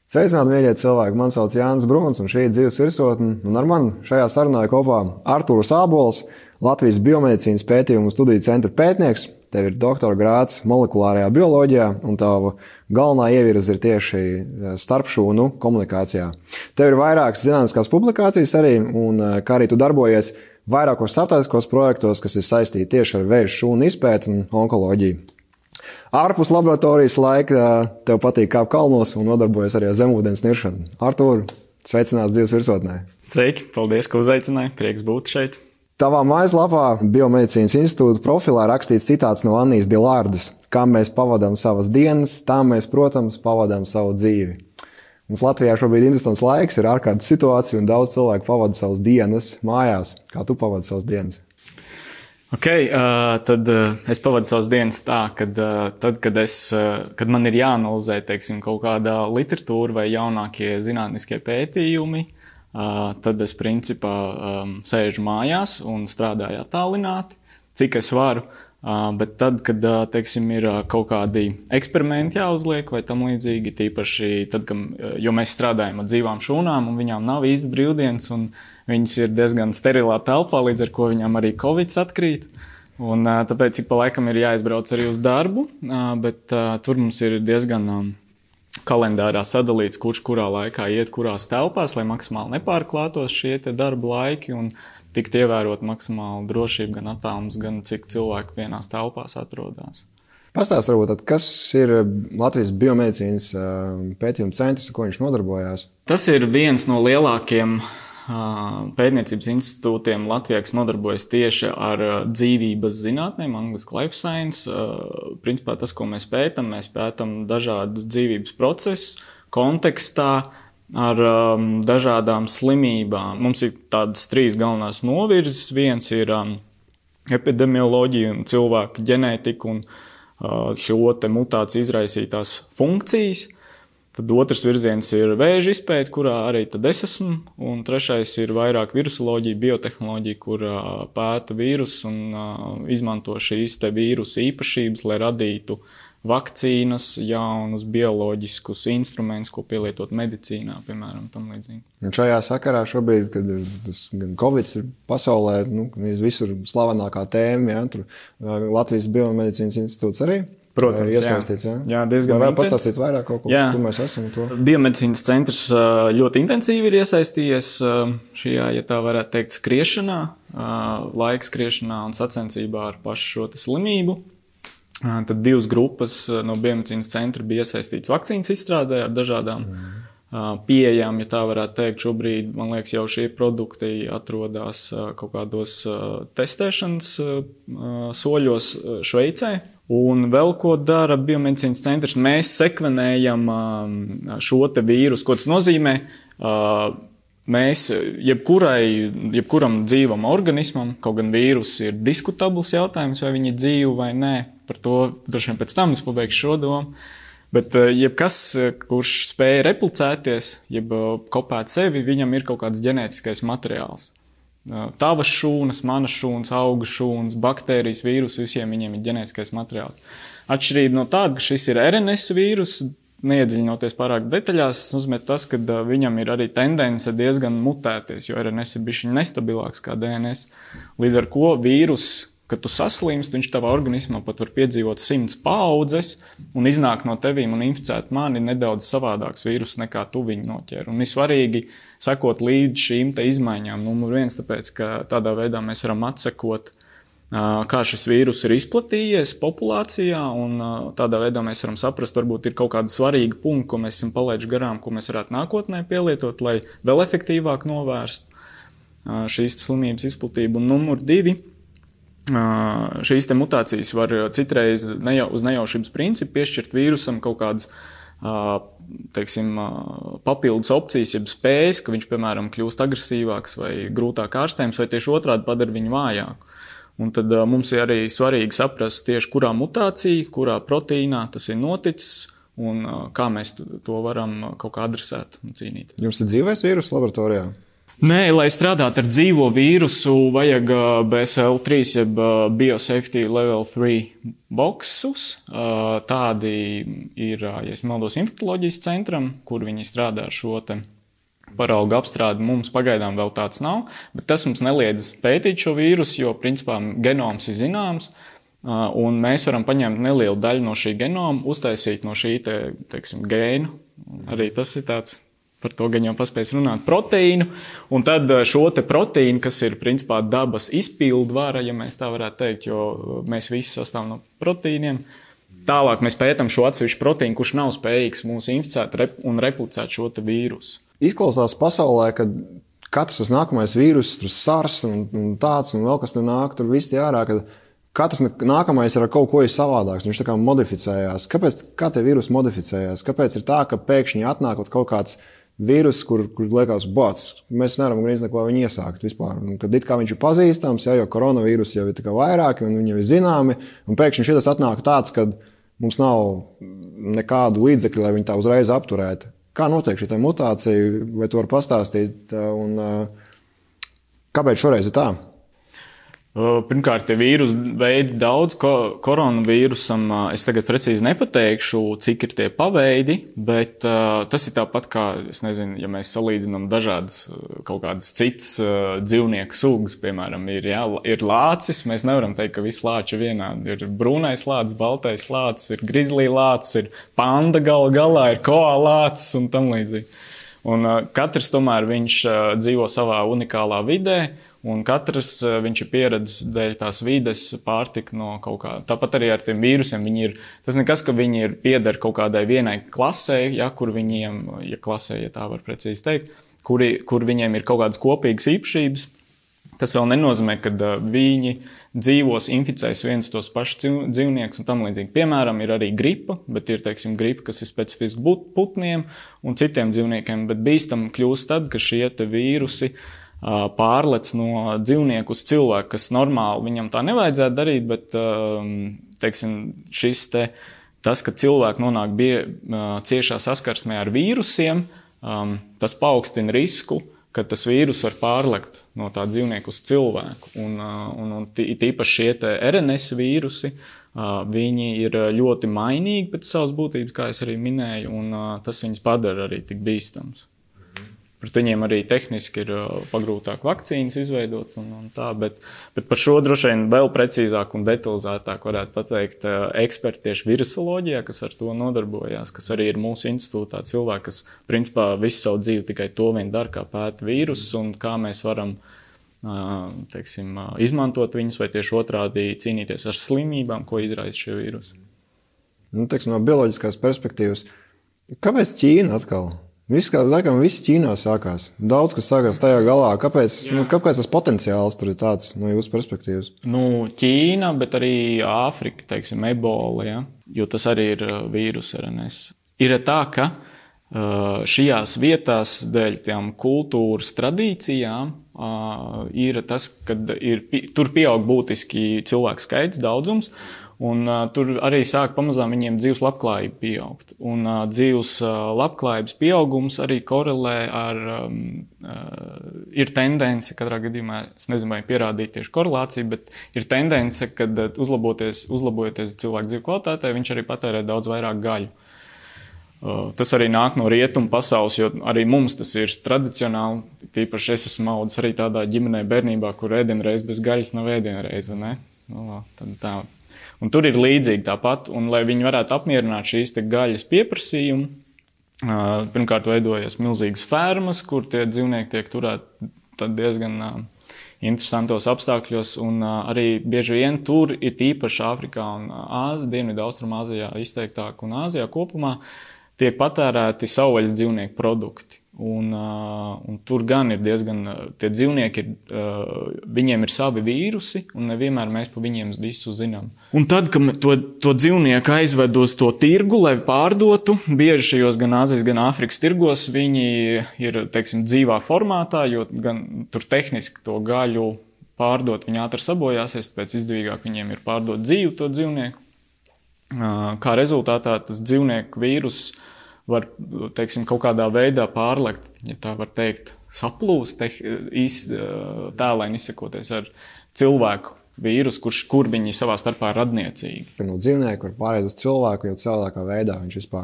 Sveicināti, mīļie cilvēki! Mani sauc Jānis Bruns, un šī ir dzīves virsotne. Un ar mani šajā sarunā kopā Artūrs Ābols, Latvijas biomedicīnas pētījumu studiju centra pētnieks. Tev ir doktora grāds molekulārajā bioloģijā, un tava galvenā ievirze ir tieši starpšūnu komunikācijā. Tev ir vairākas zinātniskās publikācijas arī, un kā arī tu darbojies vairākos starptautiskos projektos, kas ir saistīti tieši ar vēža šūnu izpēti un onkoloģiju. Ārpus laboratorijas laika tev patīk kāpt kalnos un nodarbojas arī ar zemūdens niršanu. Artūr, sveicināts dzīves virsotnē. Sveiki, paldies, ka uzaicināji. Prieks būt šeit. Tavā mājaslapā Biomedicīnas institūta profilā rakstīts citāts no Annijas Dilārdas: kā mēs pavadām savas dienas, tā mēs, protams, pavadām savu dzīvi. Mums Latvijā šobrīd interesants laiks, ir ārkārtas situācija un daudz cilvēku pavada savas dienas mājās. Kā tu pavadi savas dienas? Tad es pavadu savas dienas tā, kad man ir jāanalizē, teiksim, kaut kādā literatūra vai jaunākie zinātniskie pētījumi, tad es principā sēžu mājās un strādāju attālināti, cik es varu. Bet tad, kad, teiksim, ir kaut kādi eksperimenti jāuzliek vai tam līdzīgi, tīpaši tad, jo mēs strādājam ar dzīvām šūnām un viņām nav īsti brīvdienas un viņas ir diezgan sterilā telpā, līdz ar ko viņām arī Covids atkrīt. Un tāpēc ik pa laikam ir jāizbrauc arī uz darbu, bet tur mums ir diezgan kalendārā sadalīts, kurš kurā laikā iet kurās telpās, lai maksimāli nepārklātos šie te darba laiki un tikt ievērot maksimāli drošību, gan attālums, gan cik cilvēku vienās telpās atrodas. Pastāst varbūt, kas ir Latvijas biomedicīnas pētījuma centrs, ar ko viņš nodarbojās? Tas ir viens no lielākiem pētniecības institūtiem Latvijā, kas nodarbojas tieši ar dzīvības zinātnēm, angliski life science. Principā tas, ko mēs pētam dažādas dzīvības procesus kontekstā ar dažādām slimībām. Mums ir tādas 3 galvenās novirzes. Viens ir epidemioloģija un cilvēku ģenētika un šo te mutāciju izraisītās funkcijas. Tad otrs virziens ir vēža izpēte, kurā arī tad es esmu, un trešais ir vairāk virusoloģija, biotehnoloģija, kur pēta vīrusu un izmanto šīs te vīrusu īpašības, lai radītu vakcīnas, jaunus bioloģiskus instrumentus, ko pielietot medicīnā, piemēram, tam līdzīgi. Un šajā sakarā šobrīd, kad gan Covid ir pasaulē, visur slavenākā tēma, ja, tur Latvijas biomedicīnas institūts arī. Protams, iesaistīts, jā, diezgan vai pastāstīt vairāk kaut ko, kur mēs esam to? Biomedicīnas centrs ļoti intensīvi ir iesaistījies šajā, ja tā varētu teikt, skriešanā, laika skriešanā un sacensībā ar pašu šo te slimību. Tad 2 grupas no biomedicīnas centra bija iesaistīts vakcīnas izstrādē ar dažādām pieejām, ja tā varētu teikt. Šobrīd, man liekas, jau šie produkti atrodas kaut kādos testēšanas soļos Šveicē. Un vēl ko dara biomedicīnas centrs, mēs sekvenējam šo te vīrusu. Ko tas nozīmē? Mēs jebkuram dzīvam organismam, kaut gan vīrus ir diskutabls jautājums, vai viņi ir dzīvi vai nē, par to droši vien pēc tam es pabeigšu šo domu. Bet jebkas, kurš spēja replicēties, jeb kopēt sevi, viņam ir kaut kāds ģenētiskais materiāls. Tavas šūnas, manas šūnas, auga šūnas, baktērijas, vīrus, visiem viņiem ir ģenētiskais materiāls. Atšķirība no tāda, ka šis ir RNS vīrus, neiedziļinoties pārāk detaļās, nozīmē tas, ka viņam ir arī tendence diezgan mutēties, jo RNS ir bišķiņ nestabilāks kā DNS. Līdz ar ko vīrus, kad tu saslimst, viņš tavā organismā pat var piedzīvot 100 paaudzes un iznāk no tevīm un inficēt mani nedaudz savādāks vīrus nekā tu viņu noķer. Un ir svarīgi sekot līdz šīm te izmaiņām. Numur 1, tāpēc, ka tādā veidā mēs varam atsekot, kā šis vīrus ir izplatījies populācijā, un tādā veidā mēs varam saprast, varbūt ir kaut kāda svarīga punkta, ko mēs esam palaiduši garām, ko mēs varētu nākotnē pielietot, lai vēl efektīvāk novērst šīs slimības izplatību. Un numur 2. Šīs te mutācijas var citreiz uz nejaušības principu piešķirt vīrusam kaut kādas, teiksim, papildus opcijas, jeb spējas, ka viņš, piemēram, kļūst agresīvāks vai grūtāk ārstējams, vai tieši otrādi padara viņu vājāku. Un tad mums ir arī svarīgi saprast tieši, kurā mutācija, kurā proteīnā tas ir noticis un kā mēs to varam kaut kā adresēt un cīnīt. Jums ir dzīvais vīrus laboratorijā? Nē, lai strādātu ar dzīvo vīrusu, vajag BSL-3, jeb Biosafety Level 3 boksus. Tādi ir, ja es nemaldos, infektoloģijas centram, kur viņi strādā ar šo te paraugu apstrādi. Mums pagaidām vēl tāds nav, bet tas mums neliedz pētīt šo vīrusu, jo principā genoms ir zināms, un mēs varam paņemt nelielu daļu no šī genoma, uztaisīt no šī teiksim, gēnu. Arī tas ir tāds. Par to gan jau paspējas runāt proteīnu, un tad šo te proteīnu, kas ir principā dabas izpildvara, ja mēs tā varētu teikt, jo mēs visi sastāvam no proteīniem. Tālāk mēs pētam šo atsevišķu proteīnu, kurš nav spējīgs mūs inficēt un replicēt šo te vīrusu. Izklausās pasaulē, ka katrs tas nākamais vīrus, tur SARS un tāds, un vēl kas tur nāk, tur viss tie ārā, ka katrs nākamais ir ar kaut ko savādāks, viņš tā kā modificējās. Kā tie vīrusi modificējās? Kāpēc ir tā, ka pēkšņi atnākot kaut kāds vīrus, kur liekas, mēs nevaram gandrīz neko viņu iesākt vispār. Un, kad it kā viņš ir pazīstams, jo koronavīrus jau ir tikai vairāki un viņi jau ir zināmi, un pēkšņi šitas atnāk tāds, ka mums nav nekādu līdzekļu, lai viņi tā uzreiz apturētu. Kā notiek šī mutācija, vai tu vari pastāstīt, un kāpēc šoreiz ir tā? Pirmkārt, tie vīrusu veidi daudz, koronavīrusam es tagad precīzi nepateikšu, cik ir tie paveidi, bet tas ir tāpat kā, es nezinu, ja mēs salīdzinām dažādas kaut kādas citas dzīvnieku sugas, piemēram, ir lācis, mēs nevaram teikt, ka visi lāči ir vienādi. Ir brūnais lācis, baltais lācis, ir grizlī lācis, ir panda galā, ir koala lācis un tam līdzīgi. Un katrs tomēr viņš dzīvo savā unikālā vidē, un katrs viņš ir pieredzis dēļ tās vides pārtika no kaut kā. Tāpat arī ar tiem vīrusiem tas nekas, ka viņi pieder kaut kādai vienai klasē, kur viņiem, klasē, ja tā var precīzi teikt, kur viņiem ir kaut kādas kopīgas īpašības. Tas vēl nenozīmē, ka viņi dzīvos, inficēs viens tos pašus dzīvniekus un tam līdzīgi. Piemēram, ir arī gripa, bet ir, teiksim, gripa, kas ir specifiski putniem un citiem dzīvniekiem, bet bīstam kļūst tad, ka šie te vīrusi pārlec no dzīvnieku uz cilvēku, kas normāli viņam tā nevajadzētu darīt, bet, teiksim, tas, ka cilvēki nonāk ciešā saskarsmē ar vīrusiem, tas paaugstina risku, ka tas vīrus var pārlekt no tā dzīvnieku uz cilvēku. Un tīpaši šie te RNS vīrusi, viņi ir ļoti mainīgi pēc savas būtības, kā es arī minēju, un tas viņus padara arī tik bīstams. Pret viņiem arī tehniski ir pagrūtāk vakcīnas izveidot un tā, bet par šo droši vien vēl precīzāk un detalizētāk varētu pateikt eksperti tieši virusoloģijā, kas ar to nodarbojās, kas arī ir mūsu institūtā cilvēki, kas principā visu savu dzīvi tikai to vien dara, kā pēta vīrusus un kā mēs varam, teiksim, izmantot viņus vai tieši otrādi cīnīties ar slimībām, ko izraisa šie vīrusi. Teiksim, no bioloģiskās perspektīvas, kāpēc Ķīna atkal? Viss Ķīnā sākās. Daudz, kas sākās tajā galā. Kāpēc tas potenciāls tur ir tāds no jūsu perspektīvas? Ķīna, bet arī Āfrika, teiksim, ebola, ja? Jo tas arī ir vīrus RNS. Ir tā, ka šajās vietās dēļ tām kultūras tradīcijām ir tas, kad tur pieaug būtiski cilvēku skaits, daudzums, un tur arī sāk pamazām viņiem dzīves labklājība pieaugt. Un dzīves labklājības pieaugums arī korelē ar, ir tendence, katrā gadījumā, es nezinu, vai pierādīt tieši korelāciju, bet ir tendence, kad uzlabojoties cilvēku dzīves kvalitātei, viņš arī patērē daudz vairāk gaļu. Tas arī nāk no rietumu pasaules, jo arī mums tas ir tradicionāli, tīpaši es esmu audzis arī tādā ģimenē bērnībā, kur ēdienreiz bez gaļas nav ēdienreiz, ne? Tad tā. Un tur ir līdzīgi tāpat, un lai viņi varētu apmierināt šīs te gaļas pieprasījumu, pirmkārt veidojas milzīgas fermas, kur tie dzīvnieki tiek turēti tad diezgan interesantos apstākļos, un arī bieži vien tur ir tīpaši Āfrikā un Dienvidu Austrumāzijā izteiktāk un Āzijā kopumā tiek patērēti savvaļas dzīvnieku produkti. Un tur gan ir diezgan, tie dzīvnieki, viņiem ir savi vīrusi, un nevienmēr mēs pa viņiem visu zinām. Un tad, kad to dzīvnieku aizved uz to tirgu, lai pārdotu, bieži šajos gan Āzijas, gan Āfrikas tirgos, viņi ir, teiksim, dzīvā formātā, jo gan tur tehniski to gaļu pārdot, viņi ātri sabojāsies, tāpēc izdevīgāk viņiem ir pārdot dzīvu to dzīvnieku. Kā rezultātā tas dzīvnieku vīrus var, teiksim, kaut kādā veidā pārlekt, ja tā var teikt, saplūst, tēlēni izsakoties ar cilvēku vīrusu, kur viņi savā starpā radniecīgi. No dzīvnieku var pāriet uz cilvēku jau cilvēkā veidā,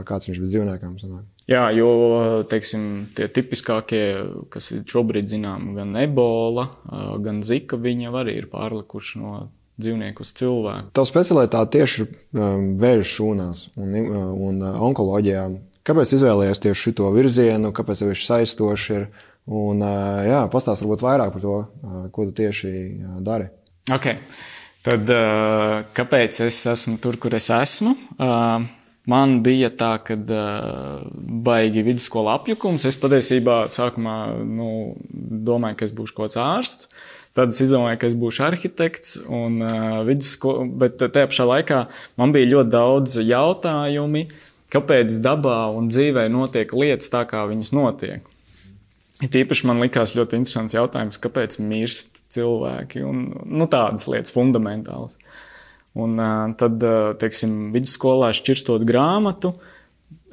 kāds viņš bez dzīvniekām sanāk. Jā, jo, teiksim, tie tipiskākie, kas šobrīd zinām, gan ebola, gan zika, viņi jau arī ir pārlikuši no dzīvnieku uz cilvēku. Tava specialitāte tieši vēža šūnās un onkoloģijā. Kāpēc izvēlējies tieši šito virzienu, kāpēc tev viņš saistoši ir? Un, pastāst varbūt vairāk par to, ko tu tieši dari. Ok, tad kāpēc es esmu tur, kur es esmu? Man bija tā, kad baigi vidusskola apjukums. Es patiesībā sākumā domāju, ka es būšu kaut kāds ārsts. Tad es izdomāju, ka es būšu arhitekts, bet tajā pašā laikā man bija ļoti daudz jautājumi, kāpēc dabā un dzīvē notiek lietas tā, kā viņas notiek. Tīpaši man likās ļoti interesants jautājums, kāpēc mirst cilvēki un tādas lietas fundamentālas. Un tad, teiksim, vidusskolā šķirstot grāmatu,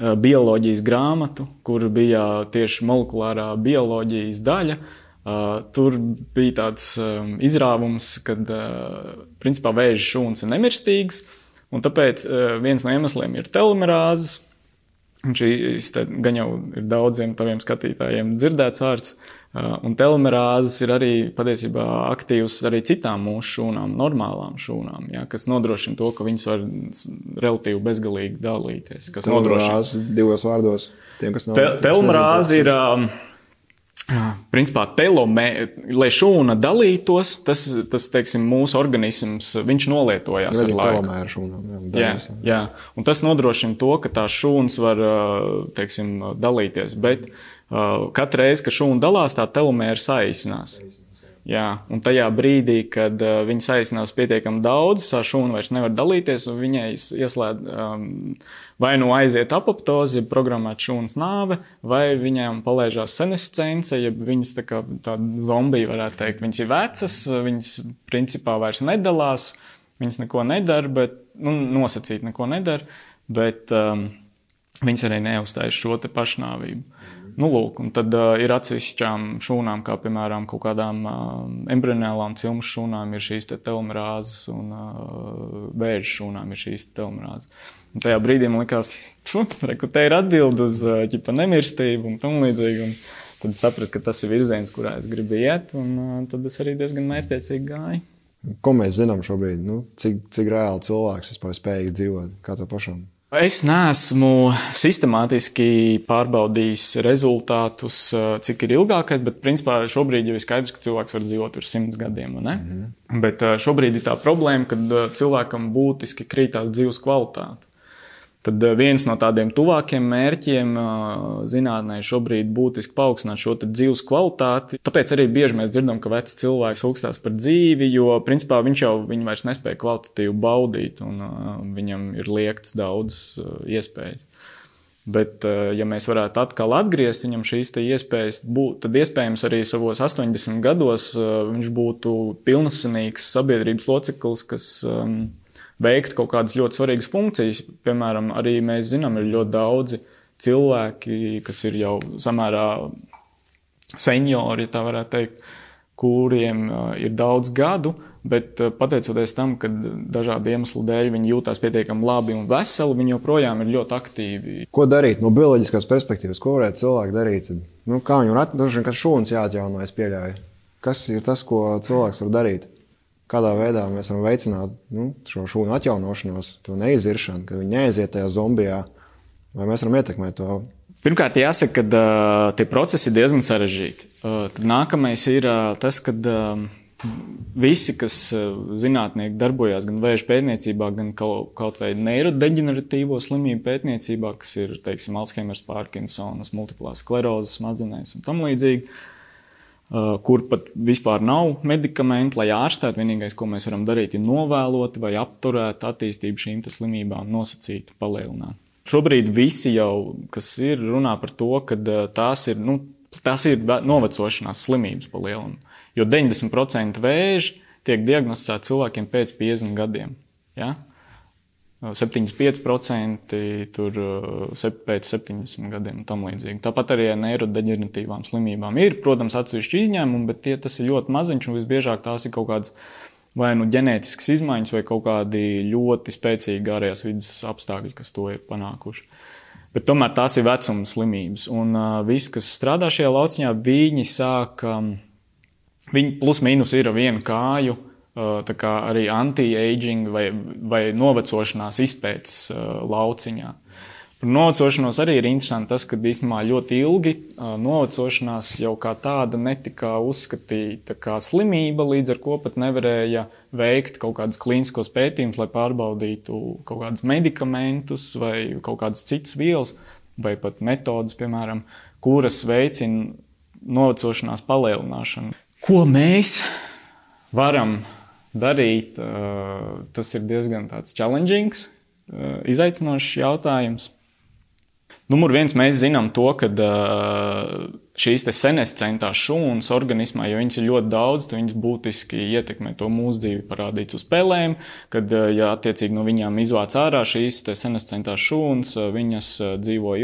bioloģijas grāmatu, kur bija tieši molekulārā bioloģijas daļa, tur bija tāds izrāvums, kad principā vēža šūnas ir nemirstīgas, un tāpēc viens no iemesliem ir telomerāzes. Un šīs gan jau ir daudziem taviem skatītājiem dzirdēts vārds, un telomerāzes ir arī patiesībā aktīvas arī citām mūsu šūnām, normālām šūnām, kas nodrošina to, ka viņas var relatīvi bezgalīgi dalīties. Telomerāze divos vārdos. Telomerāze ir principā lai šūna dalītos, tas teiksim, mūsu organisms, viņš nolietojās ar laiku. Telomēra šūnām. Jā. Un tas nodrošina to, ka tās šūnas var, teiksim, dalīties, bet katru reizi, kad šūna dalās, tā telomēra saīsinās. Jā, un tajā brīdī, kad viņi saīsinās pietiekami daudz, tā šūna vairs nevar dalīties, un viņai ieslēdz vai aiziet apoptoze, ja programmēt šūnas nāve, vai viņām palaižās senescence, ja viņas tā zombija varētu teikt. Viņas ir vecas, viņas principā vairs nedalās, viņas neko nedara, bet, nosacīt neko nedara, bet viņas arī neuzstājas šo te pašnāvību. Lūk, un tad ir atsevišķām šūnām, kā piemēram kaut kādām embrionālām cilmu šūnām ir šīs te telomerāzes un vēža šūnām ir šīs te telomerāzes. Un tajā brīdī man likās, te ir atbildi uz nemirstību un tam līdzīgi, un tad sapratu, ka tas ir virziens, kurā es gribu iet, un tad es arī diezgan mērķtiecīgi gāju. Ko mēs zinām šobrīd? Cik reāli cilvēks vispār spējīgs dzīvot? Kā tev pašam? Es neesmu sistemātiski pārbaudījis rezultātus, cik ir ilgākais, bet principā šobrīd jau ir skaidrs, ka cilvēks var dzīvot virs 100 gadiem, ne? Bet šobrīd ir tā problēma, kad cilvēkam būtiski krītās dzīves kvalitāte. Tad viens no tādiem tuvākiem mērķiem zinātnē šobrīd būtiski paaugstināt šo dzīves kvalitāti. Tāpēc arī bieži mēs dzirdam, ka vecs cilvēks augstās par dzīvi, jo principā viņi vairs nespēja kvalitatīvi baudīt un viņam ir liekts daudz iespējas. Bet, ja mēs varētu atkal atgriezt viņam šīs iespējas, tad iespējams arī savos 80 gados viņš būtu pilnasenīgs sabiedrības loceklis, kas veikt kaut kādas ļoti svarīgas funkcijas. Piemēram, arī mēs zinām, ir ļoti daudzi cilvēki, kas ir jau samērā seniori, ja tā varētu teikt, kuriem ir daudz gadu, bet pateicoties tam, ka dažādu iemeslu dēļ viņi jūtās pietiekami labi un veseli, viņi joprojām ir ļoti aktīvi. Ko darīt no bioloģiskās perspektīvas? Ko varētu cilvēki darīt? Kā viņu atdrošina, ka šūnas jāatjauno, es pieļauju? Kas ir tas, ko cilvēks var darīt? Kādā veidā mēs varam veicināt šo šūnu atjaunošanos, to neiziršanu, ka viņi neaiziet tajā zombijā, vai mēs varam ietekmēt to? Pirmkārt, jāsaka, ka tie procesi ir diezgan sarežģīti. Tad nākamais ir tas, ka visi, kas zinātnieki darbojās gan vēža pētniecībā, gan kaut vai neirodeģeneratīvo slimību pētniecībā, kas ir, teiksim, Alzheimers, Parkinsonas, multiplās sklerozes smadzenēs un tam līdzīgi, kur pat vispār nav medikamenti, lai ārstētu. Vienīgais, ko mēs varam darīt, ir novēlot vai apturēt attīstību šīm slimībām, nosacīt, palielināt. Šobrīd visi jau, kas ir, runā par to, ka tās ir novecošanās slimības pa lielam. Jo 90% vēži tiek diagnosticēti cilvēkiem pēc 50 gadiem. Ja? 75% tur pēc 70 gadiem un tam līdzīgi. Tāpat arī neirodeģeneratīvām slimībām ir, protams, atsevišķi izņēmumi, bet tas ir ļoti maziņš un visbiežāk tās ir kaut kādas vai nu ģenētiskas izmaiņas vai kaut kādi ļoti spēcīgi ārējās vidas apstākļi, kas to ir panākuši. Bet tomēr tās ir vecuma slimības. Un visi, kas strādā šajā lauciņā, viņi sāk, viņi plus mīnus ir vienu kāju, tā kā arī anti-aging vai novecošanās izpētes lauciņā. Par novecošanos arī ir interesanti tas, ka īstenībā ļoti ilgi novecošanās jau kā tāda netika uzskatīta kā slimība, līdz ar ko pat nevarēja veikt kaut kādas klīniskos pētījumus, lai pārbaudītu kaut kādus medikamentus vai kaut kādas citas vielas vai pat metodas, piemēram, kuras veicina novecošanās palielināšanu. Ko mēs varam darīt, tas ir diezgan tāds challengings, izaicinošs jautājums. Numur viens, mēs zinām to, ka šīs te senescentās šūnas organismā, jo viņas ir ļoti daudz, tad viņas būtiski ietekmē to mūsu dzīvi, parādīts uz pelēm, kad, ja attiecīgi no viņām izvāc ārā šīs te senescentās šūnas, viņas dzīvo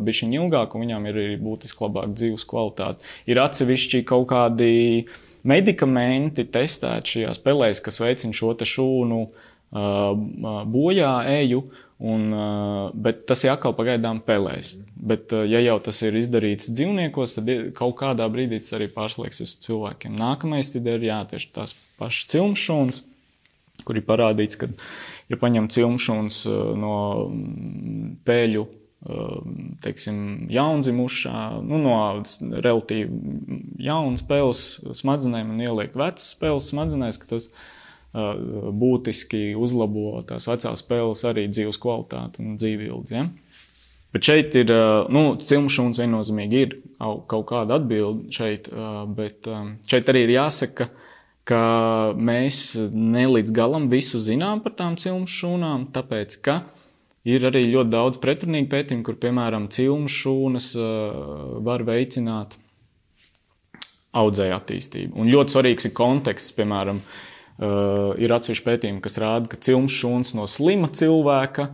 bišķiņ ilgāk un viņām ir arī būtiski labāk dzīves kvalitāte. Ir atsevišķi kaut kādi medikamenti testēti šajās pelēs, kas veicina šo te šūnu bojā eju, bet tas ir atkal pagaidām pelēs. Bet, ja jau tas ir izdarīts dzīvniekos, tad kaut kādā brīdī tas arī pārslēgs uz cilvēkiem. Nākamais tad ir tieši tās pašas cilmšūnas, kur ir parādīts, ka, ja paņem cilmšūnas no pēļu, teiksim, jaundzimušā, no relatīvi jaunas pēles smadzenēm un ieliek vecas pēles smadzenēs, ka tas būtiski uzlabo tās vecās pēles arī dzīves kvalitāti un dzīvību. Ja? Bet šeit ir, cilmšūnas viennozīmīgi ir kaut kāda atbilde šeit, bet šeit arī ir jāsaka, ka mēs ne līdz galam visu zinām par tām cilmšūnām, tāpēc, ka ir arī ļoti daudz pretrunīgu pētījumu, kur, piemēram, cilmšūnas var veicināt audzēju attīstību. Un ļoti svarīgs ir konteksts, piemēram, ir atsevišķi pētījumi, kas rāda, ka cilmšūnas no slima cilvēka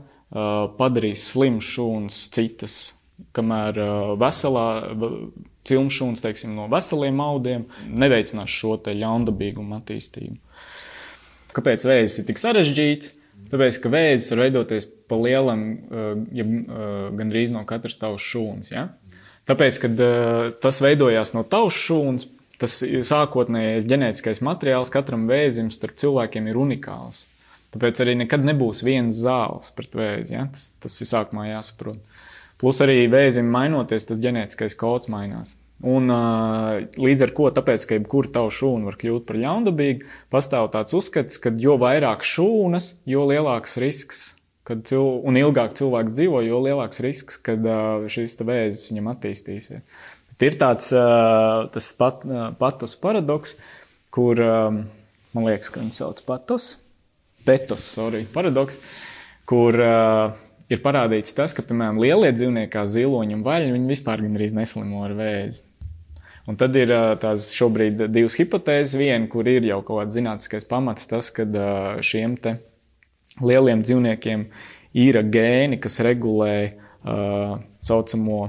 padarīs slimas šūnas citas, kamēr veselā cilmšūnas, teiksim, no veseliem audiem neveicinās šo te ļaundabīgumu attīstību. Kāpēc vēzis ir tik sarežģīts? Tāpēc, ka vēzis var veidoties pa lielam, gandrīz no katras tavas šūnas. Ja? Tāpēc, kad tas veidojās no tavas šūnas, tas sākotnējais ģenētiskais materiāls katram vēzim starp cilvēkiem ir unikāls. Tāpēc arī nekad nebūs viens zāles pret vēzi. Ja? Tas ir sākumā jāsaprot. Plus arī vēzim mainoties, tas ģenētiskais kods mainās. Un līdz ar ko, tāpēc, ka jebkura tavu šūnu var kļūt par ļaundabīgu, pastāv tāds uzskats, ka jo vairāk šūnas, jo lielāks risks, un ilgāk cilvēks dzīvo, jo lielāks risks, kad šīs vēzis viņam attīstīsies. Bet ir tāds tas patos paradoks, kur, man liekas, ka viņi sauc paradoks, kur ir parādīts tas, ka, piemēram, lielie dzīvnieki kā ziloņi un vaļņi, viņi vispār gandrīz neslimo ar vēzi. Un tad ir tās šobrīd divas hipotēzes. Viena, kur ir jau kaut kāds zinātniskais pamats, tas, ka šiem te lieliem dzīvniekiem ir gēni, kas regulē saucamo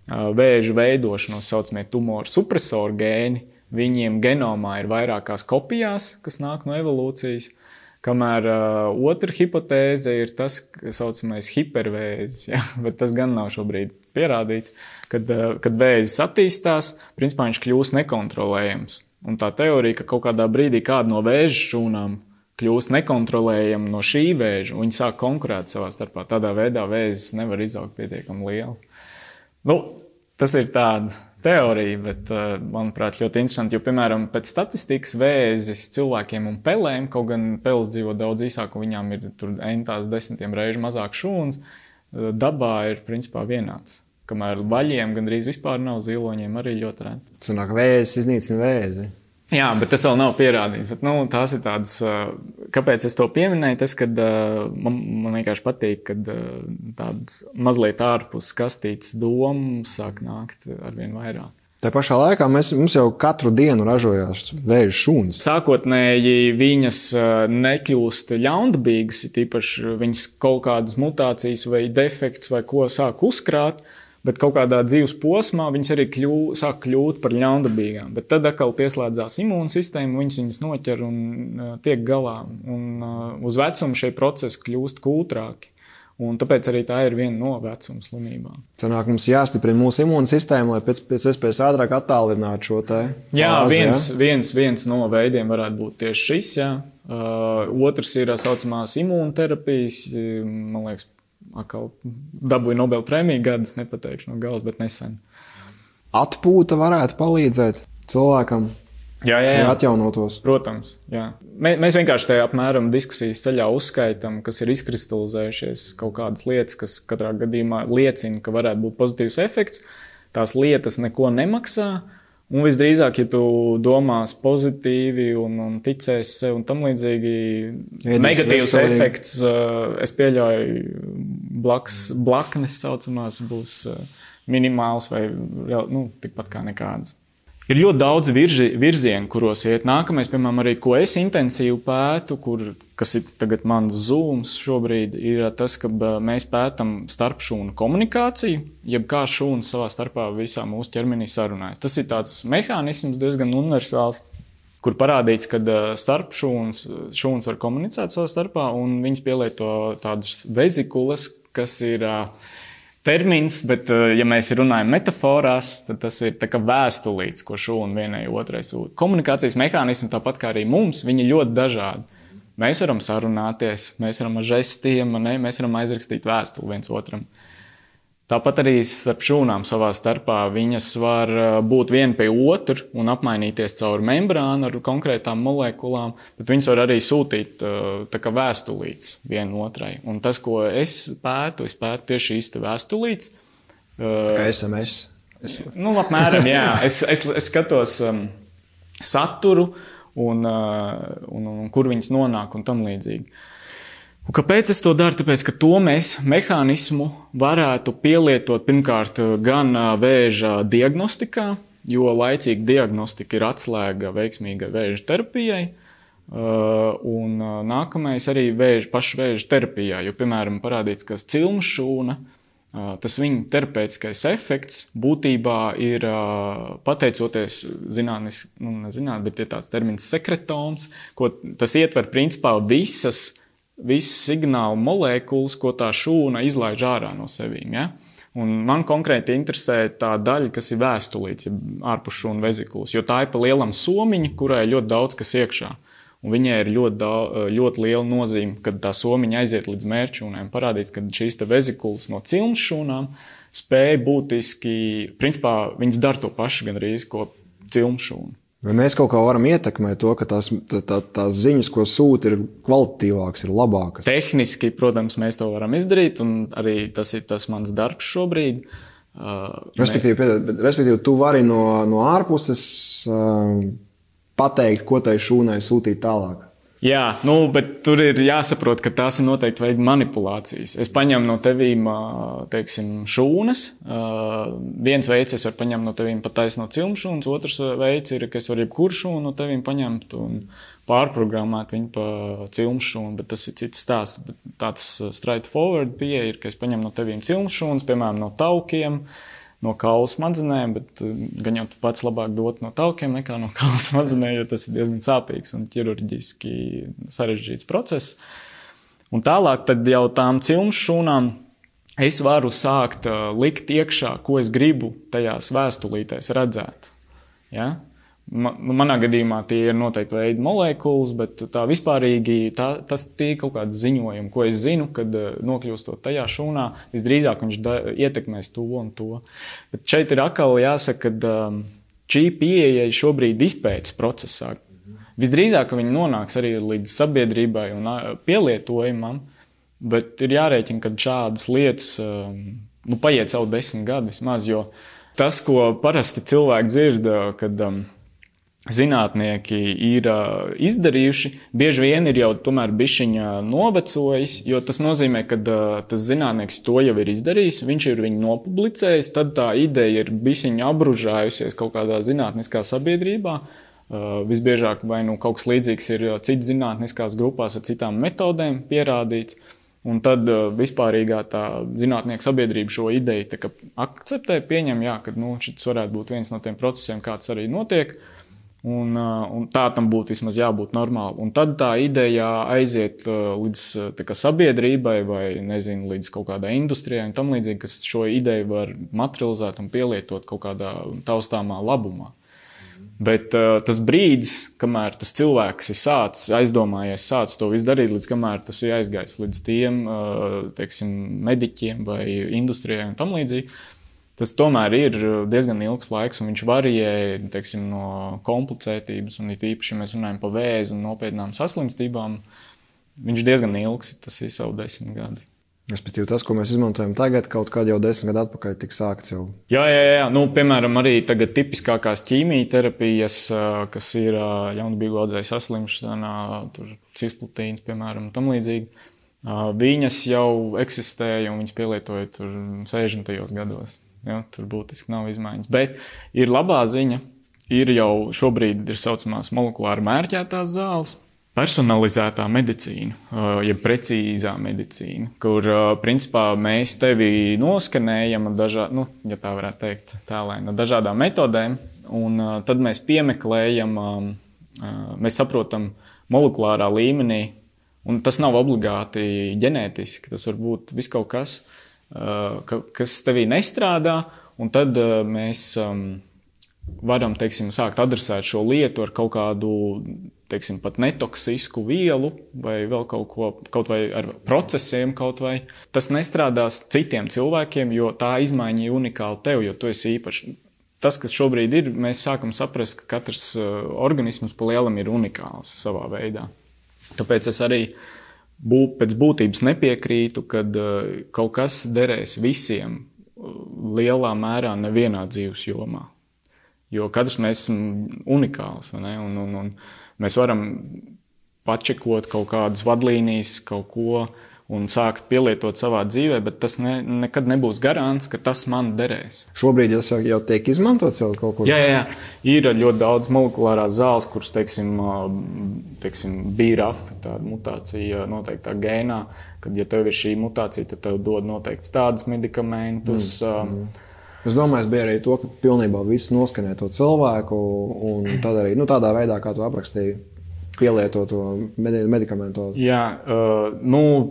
vēža veidošanos, saucamie tumoru supresoru gēni. Viņiem genomā ir vairākās kopijās, kas nāk no evolūcijas. Kamēr otra hipotēze ir tas, kas saucamais hipervēzis, ja? Bet tas gan nav šobrīd pierādīts, kad vēzis attīstās, principā viņš kļūst nekontrolējams. Un tā teorija, ka kaut kādā brīdī kāda no vēža šūnām kļūst nekontrolējama no šī vēža, un viņi sāk konkurēt savā starpā. Tādā veidā vēzis nevar izaugt pietiekami liels. Tas ir tāda teorija, bet, manuprāt, ļoti interesanti, jo, piemēram, pēc statistikas vēzis cilvēkiem un pelēm, kaut gan peles dzīvo daudz īsāk, un viņām ir tur entās 10 reižu mazāk šūnas, dabā ir, principā, vienāds. Kamēr vaļiem gandrīz vispār nav, ziloņiem arī ļoti reti. Sanāk, vēzis iznīcina vēzi. Jā, bet tas vēl nav pierādīts. Bet, tās ir tādas, kāpēc es to pieminēju, tas, kad man vienkārši patīk, kad tādas mazliet ārpus kastītes domas sāk nākt arvien vairāk. Tā pašā laikā mums jau katru dienu ražojās vēža šūnas. Sākotnēji viņas nekļūst ļaundabīgas, tīpaši viņas kaut kādas mutācijas vai defekts vai ko sāk uzkrāt, bet kaut kādā dzīves posmā viņas arī sāk kļūt par ļaundabīgām. Bet tad atkal pieslēdzās imūnsistēma, viņas noķer un tiek galā. Un uz vecumu šie procesi kļūst kūtrāki. Un tāpēc arī tā ir viena no vecuma slimībām. Sanāk, mums jāstiprina mūsu imūnsistēma, lai pēc iespējas ātrāk attālinātu šo te fāzi, jā, viens no veidiem varētu būt tieši šis, jā. Otrs ir saucamās imūnterapijas, man liekas, atkal dabūja Nobel prēmiju gadus, nepateikšu no galas, bet nesen. Atpūta varētu palīdzēt cilvēkam. Jā. Atjaunotos. Protams, jā. Mēs vienkārši te apmēram diskusijas ceļā uzskaitam, kas ir izkristalizējušies kaut kādas lietas, kas katrā gadījumā liecina, ka varētu būt pozitīvs efekts. Tās lietas neko nemaksā, un visdrīzāk, ja tu domās pozitīvi un ticēsi sev un tam līdzīgi, negatīvs efekts, es pieļauju, blaknes saucamās būs minimāls vai tikpat kā nekādas. Ir ļoti daudz virzienu, kuros iet. Nākamais, piemēram, arī, ko es intensīvi pētu, kas ir tagad mans zooms šobrīd, ir tas, ka mēs pētam starpšūnu komunikāciju, jeb kā šūnas savā starpā visā mūsu ķermenī sarunājas. Tas ir tāds mehānisms diezgan universāls, kur parādīts, ka šūnas var komunicēt savā starpā, un viņas pielieto tādas vezikulas, kas ir termins, bet, ja mēs runājam metaforās, tad tas ir tā kā vēstulīts, ko šūna vienai otrai sūta. Komunikācijas mehānismi, tāpat kā arī mums, viņi ir ļoti dažādi. Mēs varam sarunāties, mēs varam ar žestiem, mēs varam aizrakstīt vēstuli viens otram. Tāpat arī starp šūnām savā starpā viņas var būt viena pie otru un apmainīties caur membrānu ar konkrētām molekulām, bet viņas var arī sūtīt tā kā vēstulītes viena otrai. Un tas, ko es pētu tieši šīs te vēstulītes. Kā SMS? Apmēram, jā. Es skatos saturu un kur viņas nonāk un tam līdzīgi. Un kāpēc es to daru? Tāpēc, ka to mēs mehānismu varētu pielietot pirmkārt gan vēža diagnostikā, jo laicīga diagnostika ir atslēga veiksmīgai vēža terapijai, un nākamais arī paša vēža terapijā, jo, piemēram, parādīts, ka cilmšūna, tas viņa terapeitiskais efekts būtībā ir pateicoties bet ir tāds termins sekretoms, ko tas ietver principā visas signālu molekulas, ko tā šūna izlaiž ārā no sevīm. Ja? Un man konkrēti interesē tā daļa, kas ir vēstulīts, ārpus šūnu vezikulas, jo tā ir pa lielam somiņa, kurai ir ļoti daudz kas iekšā. Un viņai ir ļoti liela nozīme, kad tā somiņa aiziet līdz mērķšūnēm. Parādīts, ka šīs te vezikulas no cilmes šūnām spēja būtiski, principā viņas dara to pašu gandrīz, ko cilmes šūna. Vai mēs kaut kā varam ietekmēt to, ka tās ziņas, ko sūta, ir kvalitatīvākas, ir labākas? Tehniski, protams, mēs to varam izdarīt, un arī tas ir tas mans darbs šobrīd. Respektīvi, tu vari no ārpuses pateikt, ko tai šūnai sūtīt tālāk. Jā, bet tur ir jāsaprot, ka tās ir noteikti veidi manipulācijas. Es paņemu no tevīm, teiksim, šūnas. Viens veids es varu paņemt no tevīm pataisno cilmšūnas, otrs veids ir, ka es varu jebkuru šūnu no tevīm paņemt un pārprogrammēt viņu pa cilmšūnu, bet tas ir cits stāsts. Bet tāds straightforward pieeja ir, ka es paņemu no tevīm cilmšūnas, piemēram, no taukiem, no kaula smadzenēm, bet gan jau pats labāk dot no taukiem nekā no kaula smadzenēm, jo tas ir diezgan sāpīgs un ķirurģiski sarežģīts process. Un tālāk tad jau tām cilmes šūnām es varu sākt likt iekšā, ko es gribu tajās vēstulītēs redzēt. Ja? Manā gadījumā tie ir noteikti veidi molekulas, bet tā vispārīgi tas tie kaut kāds ziņojumi, ko es zinu, kad nokļūstot tajā šūnā, visdrīzāk viņš ietekmēs to un to. Bet šeit ir atkal jāsaka, ka šī pieeja šobrīd izpētes procesā. Visdrīzāk viņi nonāks arī līdz sabiedrībai un pielietojumam, bet ir jārēķina, ka šādas lietas paiet savu 10 gadu vismaz, jo tas, ko parasti cilvēki dzird, kad zinātnieki ir izdarījuši, bieži vien ir jau tomēr bišķiņa novecojis, jo tas nozīmē, ka tas zinātnieks to jau ir izdarījis, viņš ir viņu nopublicējis, tad tā ideja ir bišķiņa apbružājusies kaut kādā zinātniskā sabiedrībā. Visbiežāk vai kaut kas līdzīgs ir citas zinātniskās grupās ar citām metodēm pierādīts, un tad vispārīgā tā zinātnieku sabiedrība šo ideju tā kā akceptē, pieņem, jā, ka šis varētu būt viens no tiem procesiem, kāds arī notiek, un tā tam būtu vismaz jābūt normāli. Un tad tā ideja aiziet līdz tā kā sabiedrībai vai, nezinu, līdz kaut kādai industrijai un tam līdzīgi, kas šo ideju var materializēt un pielietot kaut kādā taustāmā labumā. Bet tas brīdis, kamēr tas cilvēks ir aizdomājies to visu darīt, līdz kamēr tas ir aizgājis līdz tiem, teiksim, mediķiem vai industrijai un tam līdzīgi, tas tomēr ir diezgan ilgs laiks, un viņš varijē, teiksim, no komplicētības, un it īpaši, ja mēs runājam par vēzi un nopietnām saslimstībām, viņš diezgan ilgs, tas ir savu 10 gadi. Respektīvi tas, ko mēs izmantojam tagad, kaut kādā jau 10 gadu atpakaļ tika sākts jau. Jā. Piemēram, arī tagad tipiskākās ķīmijterapijas, kas ir jaunbīgu audzēju saslimšana, tur cisplatīns, piemēram, tam līdzīgi. Viņas jau eksistēja un viņas pielietoja tur 60. gados. Ja, tur būtiski nav izmaiņas. Bet ir labā ziņa, ir jau šobrīd ir saucamās molekulāri mērķētās zāles, personalizētā medicīna, jeb precīzā medicīna, kur principā mēs tevi noskanējam ja tā varētu teikt, no dažādām metodēm, un tad mēs piemeklējam, mēs saprotam molekulārā līmenī, un tas nav obligāti ģenētiski, tas var būt viss kaut kas, kas tevī nestrādā, un tad mēs varam, teiksim, sākt adresēt šo lietu ar kaut kādu, teiksim, pat netoksisku vielu vai vēl kaut vai ar procesiem kaut vai. Tas nestrādās citiem cilvēkiem, jo tā izmaiņa ir unikāla tev, jo tu esi īpašs. Tas, kas šobrīd ir, mēs sākam saprast, ka katrs organisms pa lielam ir unikāls savā veidā. Tāpēc es arī pēc būtības nepiekrītu, kad kaut kas derēs visiem lielā mērā nevienā dzīves jomā. Jo katrs mēs esam unikāls, vai ne? Un mēs varam pačekot kaut kādas vadlīnijas, kaut ko un sākt pielietot savā dzīvē, bet tas nekad nebūs garants, ka tas man derēs. Šobrīd tas jau tiek izmantots jau kaut kur? Jā. Ir ļoti daudz molekulārās zāles, kuras, teiksim, BRAF, tāda mutācija noteiktā gēnā, kad, ja tev ir šī mutācija, tad tev dod noteikts tādas medikamentus. Es domāju, bija arī to, ka pilnībā viss noskanē to cilvēku, un tad arī tādā veidā, kā tu aprakstīji, pielieto to medikamentu. Jā,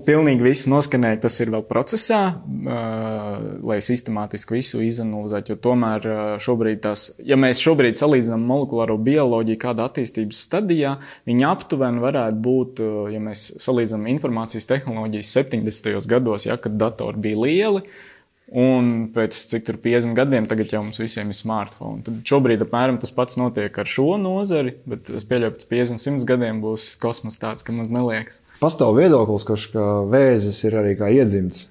pilnīgi viss noskanē, tas ir vēl procesā, lai sistemātiski visu izanalizētu, jo tomēr šobrīd ja mēs šobrīd salīdzinām molekulāro bioloģiju kādā attīstības stadijā, viņa aptuveni varētu būt, ja mēs salīdzinām informācijas tehnoloģijas 70. gados, kad datori bija lieli, un pēc cik tur 50 gadiem tagad jau mums visiem ir smartphone. Tad šobrīd apmēram tas pats notiek ar šo nozari, bet es pieļauju, pēc 50-100 gadiem būs kosmos tāds, ka mums neliekas. Pastāv viedoklis, ka vēzis ir arī kā iedzimts.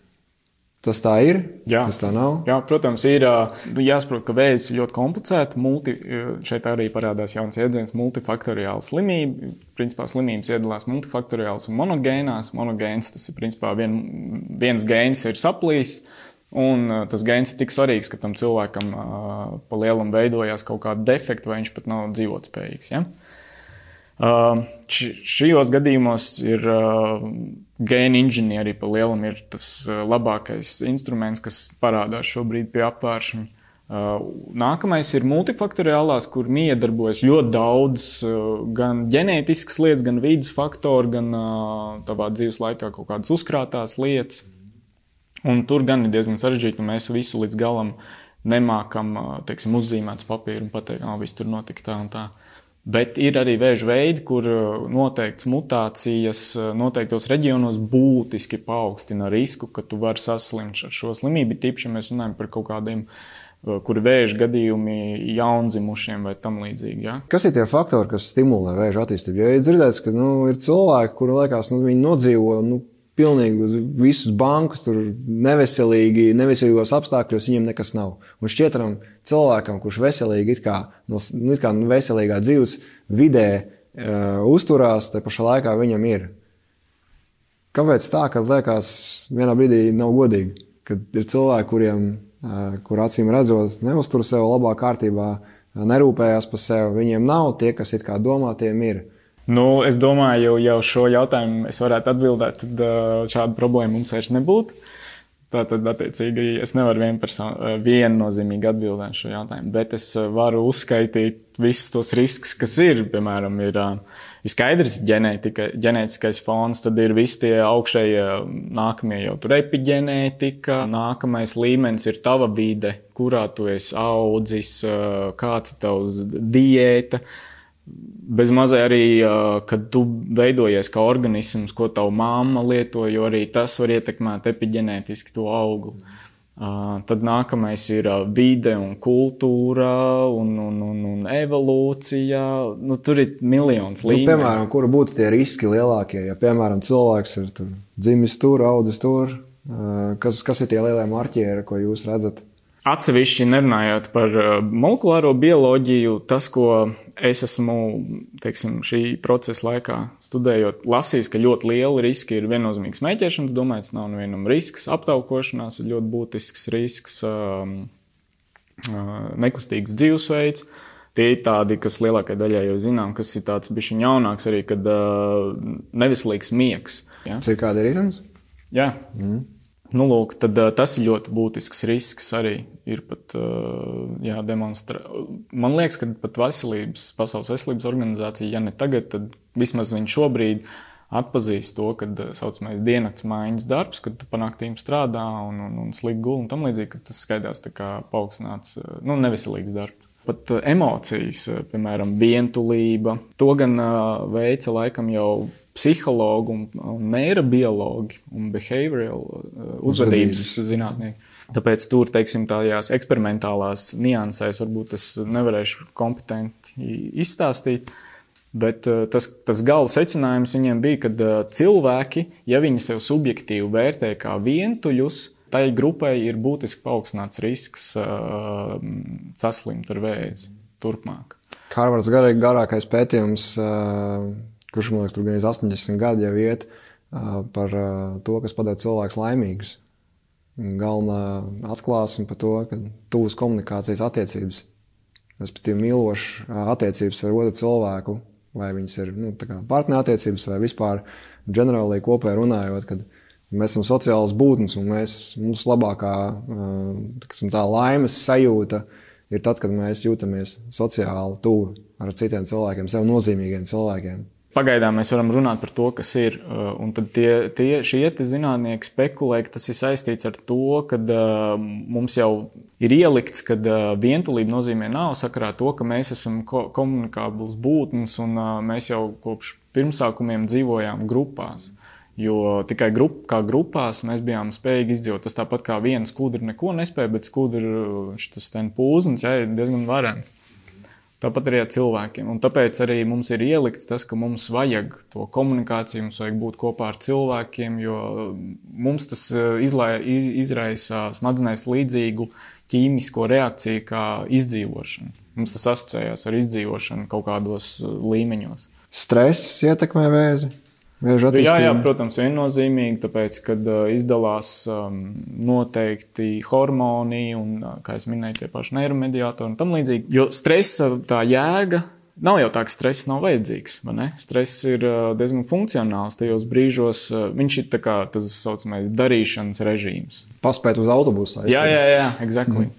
Tas tā ir? Jā. Tas tā nav? Jā, protams, ir jāsaprot, ka vēzis ir ļoti komplicēta. Šeit arī parādās jauns iedziens multifaktoriāla slimība. Principā slimības iedalās multifaktoriāls un monogēnās. Monogēns, tas ir principā viens gēns ir saplīs. Un tas gēns ir tik svarīgs, ka tam cilvēkam pa lielam veidojās kaut kāda defekta, vai viņš pat nav dzīvotspējīgs. Ja? Šajos gadījumos ir gēna inženieri pa lielam ir tas labākais instruments, kas parādās šobrīd pie apvēršana. Nākamais ir multifaktoriālās, kur iedarbojas ļoti daudz gan ģenētiskas lietas, gan vidas faktori, gan tavā dzīves laikā kaut kādas uzkrātās lietas. Un tur gan ir diezgan sarežģīti, un mēs visu līdz galam nemākam, teiksim, uzzīmēt uz papīru un pateikt, viss tur notika tā un tā. Bet ir arī vēža veidi, kur noteikts mutācijas noteiktos reģionos būtiski paaugstina risku, ka tu vari saslimt ar šo slimību. Tīpaši, ja mēs runājam par kaut kādiem, kuri vēža gadījumi jaundzimušiem vai tam līdzīgi. Ja? Kas ir tie faktori, kas stimulē vēža attīstību? Jo ir dzirdēts, ka ir cilvēki, kuri liekas, viņi nodzīvo pilnīgi uz visus bankus, tur neveselīgos apstākļos viņiem nekas nav. Un šķietram cilvēkam, kurš veselīgi it kā veselīgā dzīves vidē uzturās, te pašā laikā viņam ir. Kāpēc tā, kad liekas vienā brīdī nav godīgi? Kad ir cilvēki, kur acīm redzot neuztur sev labā kārtībā, nerūpējās par sevi, viņiem nav, tie, kas it kā domā, tiem ir. Nu, es domāju, jau šo jautājumu es varētu atbildēt, tad šāda problēma mums vairs nebūtu. Tātad, attiecīgi, es nevaru viennozīmīgi atbildēt šo jautājumu, bet es varu uzskaitīt visus tos riskus, kas ir. Piemēram, ir skaidrs ģenētiskais fons, tad ir visi tie augšējie nākamie jau tur epiģenētika, nākamais līmenis ir tava vide, kurā tu esi audzis, kāds ir tavs diēta. Bez mazai arī, kad tu veidojies kā organisms, ko tava mamma lieto, jo arī tas var ietekmēt epiģenētiski to augli. Tad nākamais ir vide un kultūra un evolūcija. Nu, tur ir miljons līmeņu. Piemēram, kura būtu tie riski lielākie? Ja, piemēram, cilvēks ir dzimis tur, audzis tur, kas ir tie lielie marķieri, ko jūs redzat? Atsevišķi nerunājot par molekulāro bioloģiju, tas, ko es esmu, teiksim, šī procesa laikā studējot, lasījis, ka ļoti liela riski ir viennozīmīgs smēķēšanas. Domāju, tas nav nevienam risks. Aptaukošanās ir ļoti būtisks risks, nekustīgs dzīvesveids. Tie ir tādi, kas lielākai daļai jau zinām, kas ir tāds bišķiņ jaunāks arī, kad neveselīgs miegs. Ja? Cirkādi ritms? Jā. Nu, lūk, tad tas ir ļoti būtisks risks arī ir pat jādemonstrē. Man liekas, ka pat Pasaules veselības organizācija, ja ne tagad, tad vismaz viņi šobrīd atpazīst to, kad saucamais diennakts maiņas darbs, kad tu pa naktīm strādā un slik guli un tam līdzīgi, ka tas skaidās tā kā paaugstināts, neveselīgs darbs. Pat emocijas, piemēram, vientulība, to gan veica laikam jau psihologi un neirobiologi un behavioral uzvedības zinātnieki. Tāpēc tur, teiksim, tādās eksperimentālās niansēs varbūt es nevarēšu kompetenti izstāstīt, bet tas gala secinājums viņiem bija, ka cilvēki, ja viņi sev subjektīvi vērtē kā vientuļus, tai grupai ir būtiski paaugstināts risks saslimt ar vēzi turpmāk. Harvards garākais pētījums, kurš, man liekas, tur gan 80 gadi jau iet par to, kas padara cilvēkus laimīgus. Galvenā atklāsme par to, ka tuvas komunikācijas attiecības, respektīvi mīlošas attiecības ar otru cilvēku, vai viņas ir partnerattiecības vai vispār ģenerāli kopēji runājot, kad mēs esam sociālas būtnes un mums labākā tā laimes sajūta ir tad, kad mēs jūtamies sociāli tuvu ar citiem cilvēkiem, sev nozīmīgiem cilvēkiem. Pagaidām mēs varam runāt par to, kas ir, un tad šie zinātnieki spekulē, ka tas ir saistīts ar to, kad mums jau ir ielikts, kad vientulība nozīmē nav sakarā to, ka mēs esam komunikābls būtnes un mēs jau kopš pirmsākumiem dzīvojām grupās. Jo tikai kā grupās mēs bijām spējīgi izdzīvot. Tas tāpat kā viena skudra neko nespēja, bet skudra šitas ten pūznis, ir diezgan varens. Tāpat arī ar cilvēkiem. Un tāpēc arī mums ir ielikts tas, ka mums vajag to komunikāciju, mums vajag būt kopā ar cilvēkiem, jo mums tas izraisa smadzenēs līdzīgu ķīmisko reakciju kā izdzīvošana. Mums tas asociējās ar izdzīvošanu kaut kādos līmeņos. Stress ietekmē vēzi? Jā, protams, viennozīmīgi, tāpēc, kad izdalās noteikti hormoni un, kā es minēju, tie paši neiromediātori un tam līdzīgi. Jo stresa tā jēga nav jau tā, ka stress nav vajadzīgs, vai ne? Stress ir diezgan funkcionāls tajos brīžos. Viņš ir tā kā tas saucamais darīšanas režīms. Paspēt uz autobusu. Jā, exactly.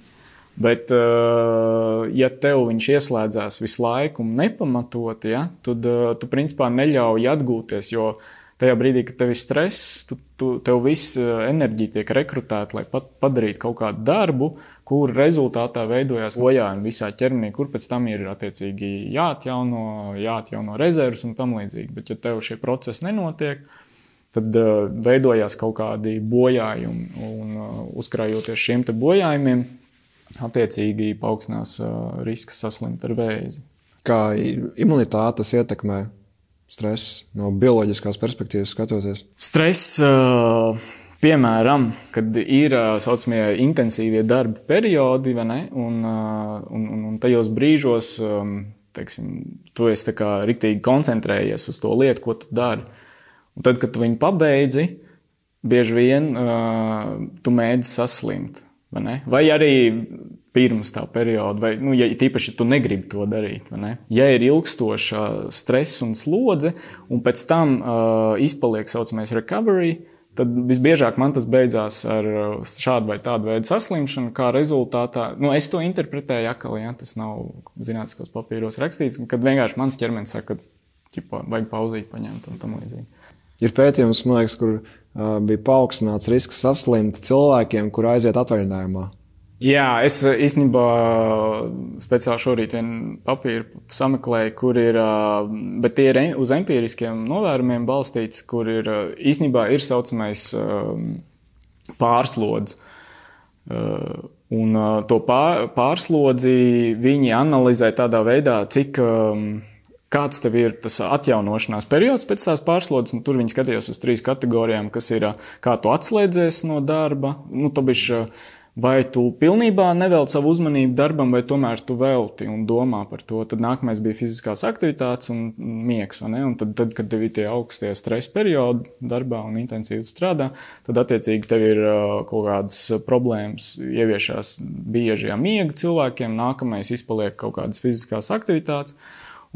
Bet, ja tev viņš ieslēdzās visu laiku un nepamatot, tad tu principā neļauj atgūties, jo tajā brīdī, kad tev ir stress, tev viss enerģija tiek rekrutēta, lai padarītu kaut kādu darbu, kur rezultātā veidojās bojājumi visā ķermenī, kur pēc tam ir attiecīgi jāatjauno rezervus un tam līdzīgi. Bet, ja tev šie procesi nenotiek, tad veidojās kaut kādi bojājumi un uzkrājoties šiem te bojājumiem, attiecīgi paaugstinās risks saslimt ar vēzi. Kā imunitāte tas ietekmē? stress no bioloģiskās perspektīvas skatoties? Stress, piemēram, kad ir saucamie intensīvie darba periodi, vai ne? Un tajos brīžos, teiksim, tu esi tā kā riktīgi koncentrējies uz to lietu, ko tu dari. Un tad, kad tu viņu pabeidzi, bieži vien tu mēdzi saslimt, vai ne? Vai arī pirms tā perioda, vai, ja tīpaši tu negribi to darīt, vai ne? Ja ir ilgstoša stress un slodze, un pēc tam izpaliek saucamais recovery, tad visbiežāk man tas beidzās ar šādu vai tādu veidu saslimšanu, kā rezultātā, es to interpretēju akali, ja, tas nav zinātniskos papīros rakstīts, kad vienkārši mans ķermenis saka, ka vajag pauzīt paņemt un tam līdzīgi. Ir pētījums, man liekas, kur bija paaugstināts risks saslimt cilvēkiem, kur aiziet atvaļinājumā. Jā, es īstenībā speciāli šorīt vienu papīru sameklēju, kur ir, bet tie ir uz empiriskiem novērumiem balstīts, kur ir īstenībā ir saucamais pārslodzi. Un to pārslodzi viņi analizē tādā veidā, kāds tev ir tas atjaunošanās periods pēc tās pārslodzes, un tur viņi skatījās uz 3 kategorijām, kas ir, kā tu atslēdzies no darba, vai tu pilnībā nevelti savu uzmanību darbam, vai tomēr tu velti un domā par to. Tad nākamais bija fiziskās aktivitātes un miegs, vai ne? Un tad, kad tev ir tie augstie stresa periodi darbā un intensīvi strādā, tad attiecīgi tev ir kaut kādas problēmas ieviešās bieži miega cilvēkiem, nākamais izpaliek kaut kādas fiziskās aktivitātes.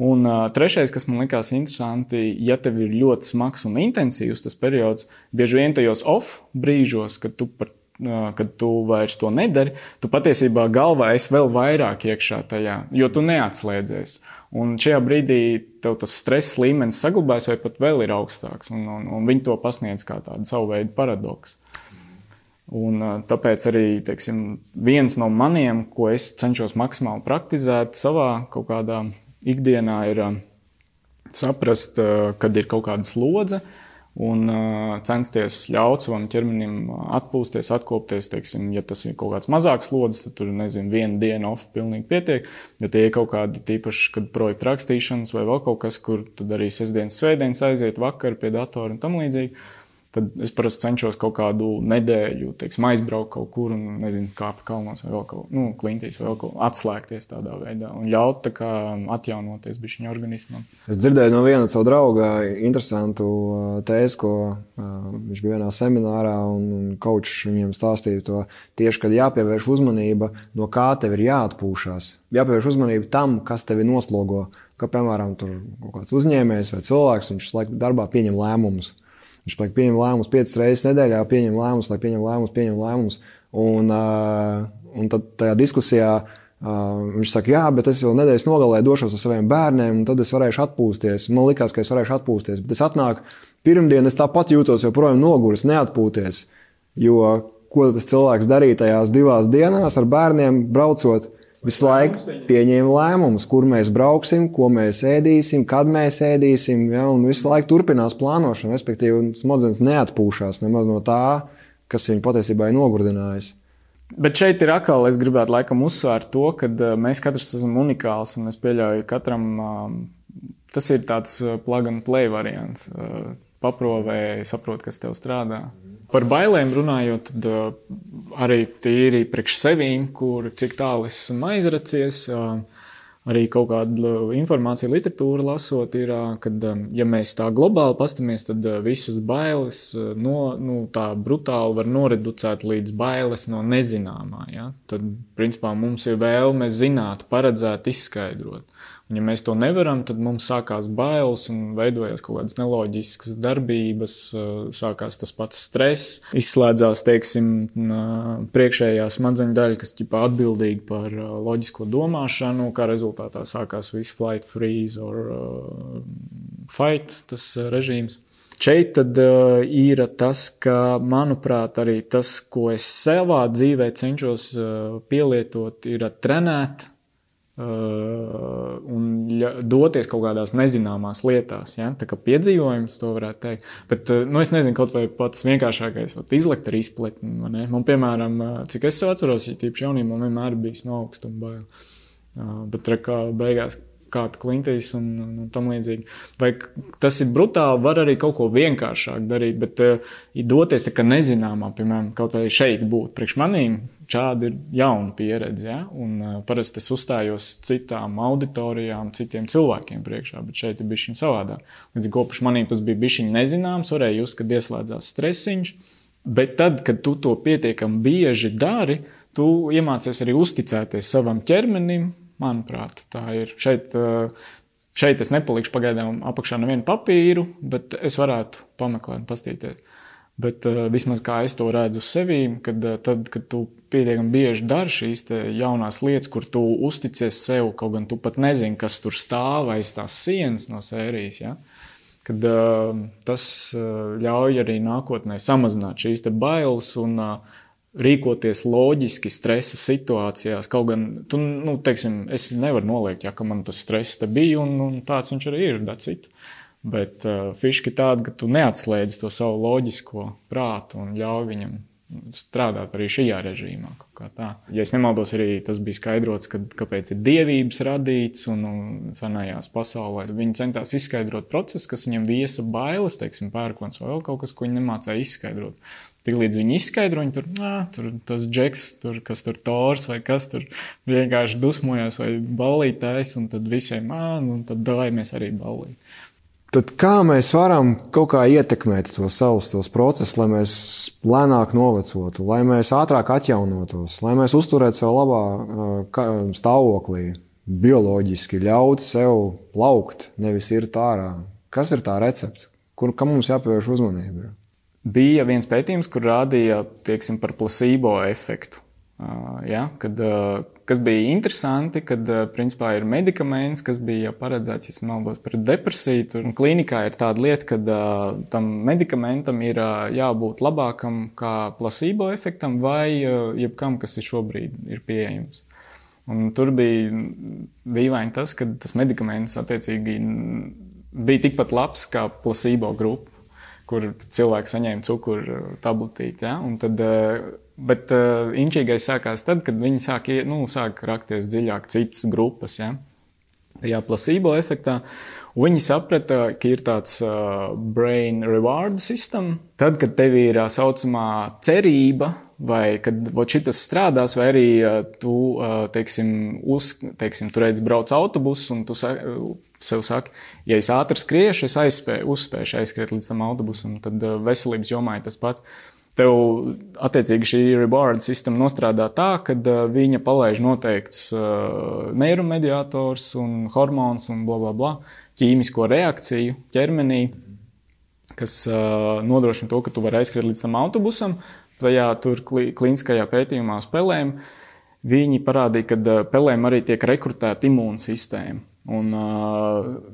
Un trešais, kas man likās interesanti, ja tev ir ļoti smags un intensīvs tas periods, bieži vien tajos off brīžos, kad tu vairs to nedari, tu patiesībā galvā esi vēl vairāk iekšā tajā, jo tu neatslēdzies. Un šajā brīdī tev tas stress līmenis saglabājas vai pat vēl ir augstāks, un viņi to pasniedz kā tādu savu veidu paradoksu. Un tāpēc arī, teiksim, viens no maniem, ko es cenšos maksimāli praktizēt savā kaut kādā ikdienā, ir saprast, kad ir kaut kāda slodze, un censties ļaut savam ķermenim atpūsties, atkopties, teiksim, ja tas ir kaut kāds mazāks slodzes, tad tur, viena diena off pilnīgi pietiek, ja tie ir kaut kādi tīpaši, kad projekta rakstīšanas vai vēl kaut kas, kur tad arī sestdienas, svētdienas aiziet vakar pie datora un tam līdzīgi, tad es parasti cenšos kaut kādu nedēļu, teiksim, aizbraukt kaut kur un, kāpt kalnos vai vēl kaut, klintīs vai vēl kaut, atslēgties tādā veidā un ļaut tā kā atjaunoties bišķiņa organismam. Es dzirdēju no viena savu drauga interesantu tēzi, ko viņš bija vienā seminārā un coachs viņiem stāstīja to tieši, kad jāpievērš uzmanība, no kā tev ir jāatpūšās. Jāpievērš uzmanība tam, kas tevi noslogo, ka, piemēram, tur kaut kāds uzņēmējs vai cilvēks, viņš laiku darbā pieņem lēmumus. Viņš pieņem lēmumus 5 reizes nedēļā, pieņem lēmumus, un tad tajā diskusijā viņš saka, jā, bet es jau nedēļas nogalē došos ar saviem bērniem, un tad es varēšu atpūsties. Man likās, ka es varēšu atpūsties, bet es atnāku pirmdien, es tāpat jūtos joprojām noguris, neatpūties, jo ko tas cilvēks darīja tajās 2 dienās ar bērniem braucot, visu laiku pieņēma lēmumus, kur mēs brauksim, ko mēs ēdīsim, kad mēs ēdīsim, ja, un visu laiku turpinās plānošana, respektīvi smadzenes neatpūšās nemaz no tā, kas viņu patiesībā ir nogurdinājis. Bet šeit ir atkal, es gribētu laikam uzsvērt to, ka mēs katrs esam unikāls, un es pieļauju katram, tas ir tāds plug and play variants, paprovē, saprot, kas tev strādā. Par bailēm runājot, tad arī tīri priekš sevīm, kur cik tālu esmu aizracies, arī kaut kādu informāciju literatūru lasot, ir, kad, ja mēs tā globāli pastamies, tad visas bailes tā brutāli var noreducēt līdz bailes no nezināmā. Ja? Tad, principā, mums ir vēlme zināt, paredzēt, izskaidrot. Un, ja mēs to nevaram, tad mums sākās bailes un veidojās kaut kādas neloģiskas darbības, sākās tas pats stress, izslēdzās, teiksim, priekšējā smadzeņu daļa, kas ķipā atbildīga par loģisko domāšanu, kā rezultātā sākās viss flight, freeze or fight, tas režīms. Šeit tad ir tas, ka, manuprāt, arī tas, ko es savā dzīvē cenšos pielietot, ir trenēt, un doties kaut kādās nezināmās lietās, ja? Tā kā piedzīvojums, to varētu teikt. Bet, es nezinu, kaut vai pats vienkāršākais, izlekt ar izpletni, vai ne? Man, piemēram, cik es sev atceros, ja tīpaši jaunībā man vienmēr bijis no augstuma baila. Bet, kā beigās kāda klintīs un tam līdzīgi. Vai tas ir brutāli, var arī kaut ko vienkāršāk darīt, bet doties tā kā nezināmā, piemēram, kaut vai šeit būt. Priekš manīm šādi ir jauna pieredze, ja? Un parasti es uzstājos citām auditorijām, citiem cilvēkiem priekšā, bet šeit ir bišķiņ savādāk. Līdz ko priekš manīm tas bija bišķiņ nezināms, varēja just, kad ieslēdzās stresiņš, bet tad, kad tu to pietiekami bieži dari, tu iemācies arī uzticēties savam ķermenim, manuprāt, tā ir. Šeit es nepalikšu pagaidām apakšā nevienu papīru, bet es varētu pameklēt un pastīties. Bet vismaz kā es to redzu sevī, kad tu pietiekami bieži dari šīs te jaunās lietas, kur tu uzticies sev, kaut gan tu pat nezini, kas tur stāv aiz tās sienas no sērijas, ja? Kad tas ļauj arī nākotnē samazināt šīs te bailes un rīkoties loģiski stresa situācijās, kaut gan, teiksim, es nevaru noliekt, ja, ka man tas stress te bija, un tāds viņš arī ir, that's it. Bet fiški tāda, ka tu neatslēdz to savu loģisko prātu un ļauj viņam strādāt arī šajā režīmā, kaut kā tā. Ja es nemaldos, arī tas bija skaidrots, kāpēc ir dievības radīts un senajās pasaulēs. Viņi centās izskaidrot procesu, kas viņam viesa bailes, teiksim, pērkons vai vēl kaut kas, ko viņi nemācēja izskaidrot. Tik līdz viņi izskaidro, viņi tur tas džeks, kas tur Tors vai kas tur vienkārši dusmojās vai ballītājs, un tad visiem, un tad dājamies arī ballīt. Tad kā mēs varam kaut kā ietekmēt tos procesus, lai mēs lēnāk novecotu, lai mēs ātrāk atjaunotos, lai mēs uzturētu sev labā stāvoklī, bioloģiski ļaut sev plaukt, nevis irt ārā? Kas ir tā recepte? Kam mums jāpievērš uzmanība? Bija viens pētījums, kur rādīja, teiksim, par placebo efektu. Ja, kas bija interesanti, kad principā ir medikaments, kas bija paredzēts, ja nemaldos, pret depresiju. Tur klīnikā ir tāda lieta, ka tam medikamentam ir jābūt labākam kā placebo efektam vai jebkam, kas ir šobrīd ir pieejams. Un tur bija dīvaini tas, ka tas medikaments attiecīgi bija tikpat labs kā placebo grupa, kur cilvēki saņēma cukuru tabletīti, ja? Un tad, bet inčīgais sākās tad, kad viņi sāk rakties dziļāk citas grupas, ja? Tajā placebo efektā. Un viņi saprata, ka ir tāds brain reward system. Tad, kad tev ir saucamā cerība, vai kad šitas strādās, vai arī tu, tu redz brauc autobusu un tu sev saki, ja es ātri skriešu, es uzspēšu aizskriet līdz tam autobusam, tad veselības jomā ir tas pats. Tev, attiecīgi, šī reward sistema nostrādā tā, kad viņa palaiž noteikts neiromediators un hormons un blablabla, ķīmisko reakciju ķermenī, kas nodrošina to, ka tu vari aizskriet līdz tam autobusam. Tajā tur klīniskajā pētījumā uz pelēm viņi parādīja, ka pelēm arī tiek rekrutēta imūnsistēma. Un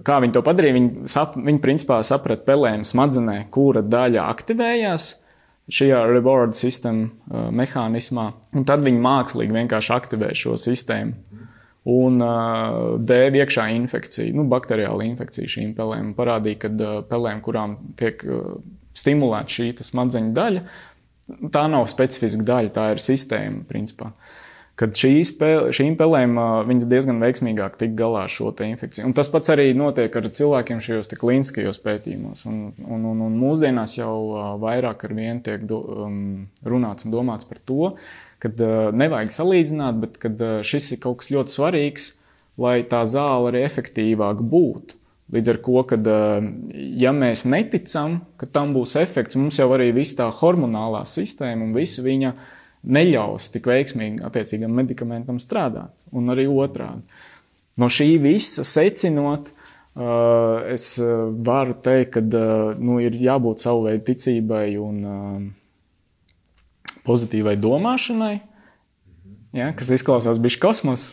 kā viņi to padarīja, viņi principā saprata pelēm smadzenē, kura daļa aktivējās šajā reward system mehānismā, un tad viņi mākslīgi vienkārši aktivē šo sistēmu un dēv iekšā infekciju, bakteriāla infekcija šīm pelēm. Parādīja, ka pelēm, kurām tiek stimulēta šī smadzeņu daļa, tā nav specifiska daļa, tā ir sistēma, principā. Kad šīm pelēm viņas diezgan veiksmīgāk tik galā ar šo te infekciju. Un tas pats arī notiek ar cilvēkiem šajos te klīniskajos pētījumos. Un mūsdienās jau vairāk ar vienu tiek runāts un domāts par to, kad nevajag salīdzināt, bet kad šis ir kaut kas ļoti svarīgs, lai tā zāle arī efektīvāk būtu. Līdz ar ko, kad ja mēs neticam, ka tam būs efekts, mums jau arī viss tā hormonālā sistēma un visa viņa neļaus tik veiksmīgi attiecīgam medikamentam strādāt, un arī otrādi. No šī visa secinot, es varu teikt, ka ir jābūt savu veidu ticībai un pozitīvai domāšanai, ja, kas izklausās bišķi kosmos.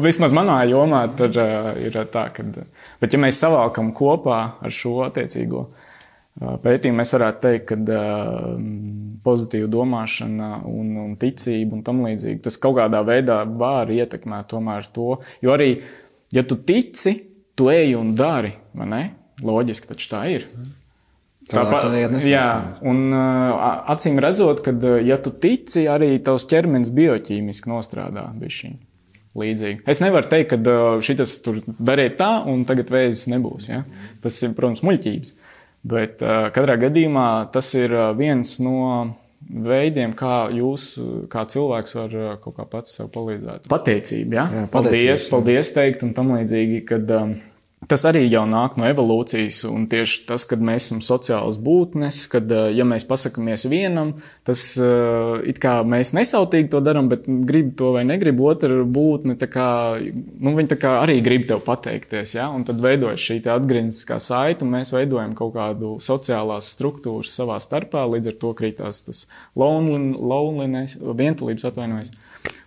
Vismaz manā jomā tur ir tā, bet ja mēs savākam kopā ar šo attiecīgo pētījumu, mēs varētu teikt, ka pozitīva domāšana un ticība un tam līdzīgi, tas kaut kādā veidā var ietekmēt tomēr to, jo arī, ja tu tici, tu ej un dari, vai ne? Loģiski, taču tā ir. Jā, un acīm redzot, ka ja tu tici, arī tavs ķermenis bioķīmiski nostrādā bišķiņ. līdzīgi. Es nevaru teikt, ka šitas tur dariet tā, un tagad vēzis nebūs. Ja? Tas ir, protams, muļķības. Bet katrā gadījumā tas ir viens no veidiem, kā jūs, kā cilvēks, var kaut kā pats sev palīdzēt. Pateicība, ja? Jā, paldies teikt un tam līdzīgi, kad tas arī jau nāk no evolūcijas, un tieši tas, kad mēs esam sociālas būtnes, kad, ja mēs pasakamies vienam, tas it kā mēs nesautīgi to daram, bet grib to vai negrib otra būtne, tā kā, viņi tā kā arī grib tev pateikties, ja? Un tad veidojas šī atgriezniskā saite, un mēs veidojam kaut kādu sociālās struktūras savā starpā, līdz ar to krītās tas loneliness, vientulības atvainojas,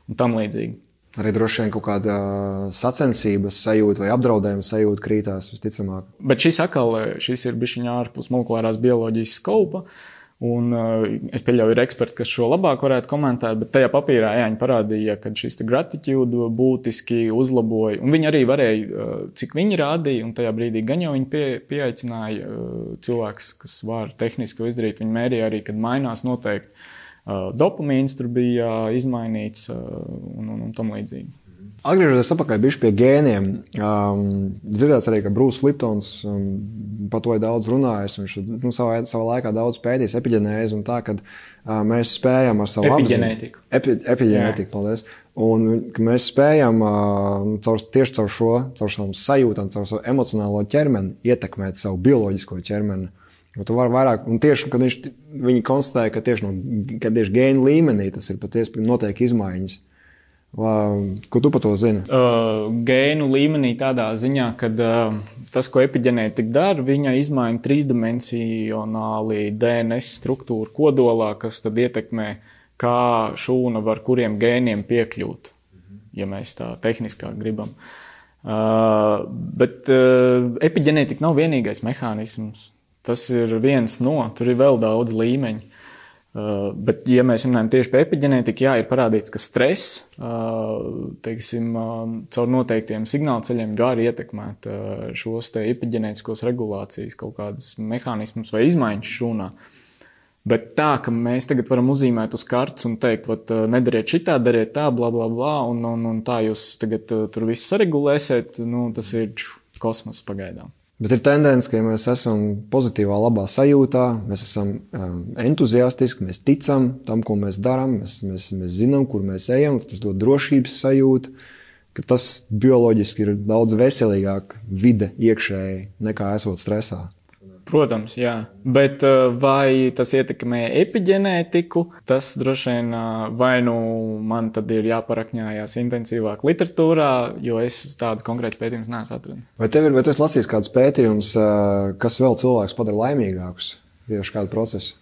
un tam līdzīgi. Arī droši vien kaut kāda sacensības sajūta vai apdraudējuma sajūta krītās visticamāk. Bet šis ir bišķiņā ārpus molekulārās bioloģijas skaupa, un es pieļauju, ir eksperti, kas šo labāk varētu komentēt, bet tajā papīrā viņi parādīja, ka šis gratitude būtiski uzlaboja, un viņi arī varēja, cik viņi rādīja, un tajā brīdī gan jau viņi pieaicināja cilvēks, kas var tehniski to izdarīt, viņi mērīja arī, kad mainās noteikti. Dopamīns tur bija izmainīts un tam līdzīgi. Atgriežoties atpakaļ bišķi pie gēniem, dzirdēts arī, ka Bruce Liptons par to ir daudz runājis, viņš savā laikā daudz pētījis epigenēzi un tā, kad mēs spējam ar savu epigenētiku. Epigenētiku, paldies. Un ka mēs spējam tieši caur savām sajūtām, caur savu emocionālo ķermeni ietekmēt savu bioloģisko ķermeni. Tu vari vairāk, un tieši, kad viņi konstatēja, ka tieši gēnu līmenī tas ir patiesi notiek izmaiņas. Ko tu par to zini? Gēnu līmenī tādā ziņā, ka tas, ko epigenētika dara, viņa izmaina trīsdimensionāli DNS struktūru kodolā, kas tad ietekmē, kā šūna var kuriem gēniem piekļūt, ja mēs tā tehniskāk gribam. Bet epigenētika nav vienīgais mehānisms. Tas ir viens no, tur ir vēl daudz līmeņu. Bet, ja mēs runājam tieši par epigenētiku, jā, ir parādīts, ka stress, teiksim, caur noteiktiem signālceļiem var ietekmēt šos te epigenētiskos regulācijas kaut kādas mehānismus vai izmaiņas šūnā. Bet tā, ka mēs tagad varam uzzīmēt uz kartes un teikt, nedariet šitā, dariet tā, bla, bla, bla, un tā jūs tagad tur visu saregulēsiet, tas ir kosmos pagaidām. Bet ir tendence, ka ja mēs esam pozitīvā, labā sajūtā, mēs esam entuziastiski, mēs ticam tam, ko mēs darām, mēs zinām, kur mēs ejam, tas dod drošības sajūtu, ka tas bioloģiski ir daudz veselīgāk vide iekšēji nekā esot stresā. Protams, jā. Bet vai tas ietekmē epigenētiku, tas droši vien vai man tad ir jāparakņājās intensīvāk literatūrā, jo es tādas konkrētas pētījumus neesmu atradis. Vai tu esi lasījis kādus pētījumus, kas vēl cilvēks padara laimīgākus tieši kādu procesu?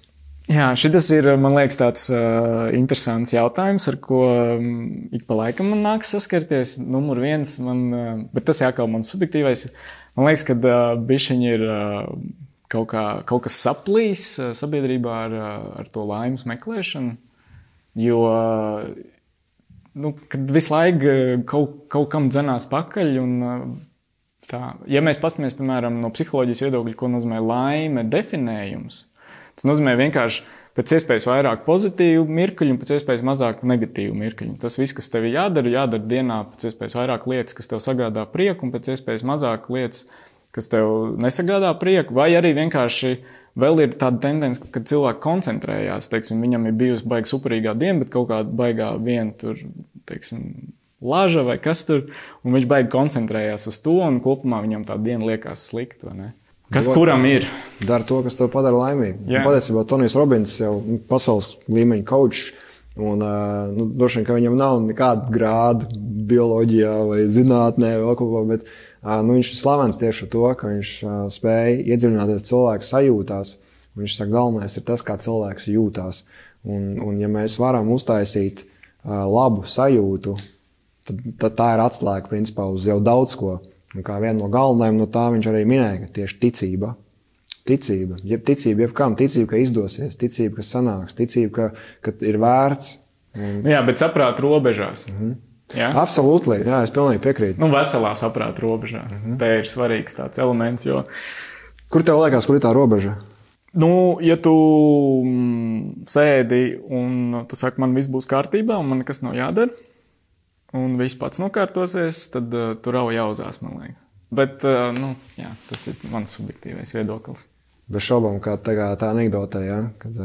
Jā, šitas ir, man liekas, tāds interesants jautājums, ar ko ik pa laikam man nāks saskarties. Numur viens, bet tas jākal man subjektīvais. Man liekas, ka bišķiņi ir kaut kas saplīs sabiedrībā ar to laimes meklēšanu, jo, kad visu laiku kaut kam dzenās pakaļ un tā. Ja mēs paskatāmies, piemēram, no psiholoģijas viedokļa, ko nozīmē laime definējums, tas nozīmē vienkārši pēc iespējas vairāk pozitīvu mirkļu un pēc iespējas mazāk negatīvu mirkļu. Tas viss, kas tev jādara dienā pēc iespējas vairāk lietas, kas tev sagādā prieku un pēc iespējas mazāk lietas, kas tev nesagādā prieku, vai arī vienkārši vēl ir tāda tendence, kad cilvēki koncentrējās, teiksim, viņam ir bijusi baiga superīgā diena, bet kaut kāda baigā viena tur, teiksim, laža vai kas tur, un viņš baigi koncentrējās uz to, un kopumā viņam tā diena liekas slikta, vai ne? Kas kuram ir? Dara to, kas tev padara laimīgu. Patiesībā Tonijs Robins jau pasaules līmeņa kaučs, un droši vien, ka viņam nav nekāda grāda bioloģijā vai zinātnē vai kaut ko, bet viņš ir slavens tieši ar to, ka viņš spēja iedziļināties cilvēku sajūtās. Viņš saka, galvenais ir tas, kā cilvēks jūtās. Un ja mēs varam uztaisīt labu sajūtu, tad tā ir atslēga principā uz jau daudz ko. Un kā viena no galvenajām no tā viņš arī minēja, ka tieši ticība, jebkam, ticība, ka izdosies, ticība, ka sanāks, ticība, ka ir vērts. Jā, bet saprāt robežās. Jā? Absolūti, jā, es pilnīgi piekrītu. Veselā saprāt robežā. Te ir svarīgs tāds elements, jo... Kur tev liekas, kur ir tā robeža? Ja tu sēdi un tu saki, man viss būs kārtībā un man nekas nav jādara, un viss pats nokārtosies, tad tur jau jāuzās, man liekas. Bet, jā, tas ir mans subjektīvais viedoklis. Bez šaubām, kā tā anekdotē, ja? Kad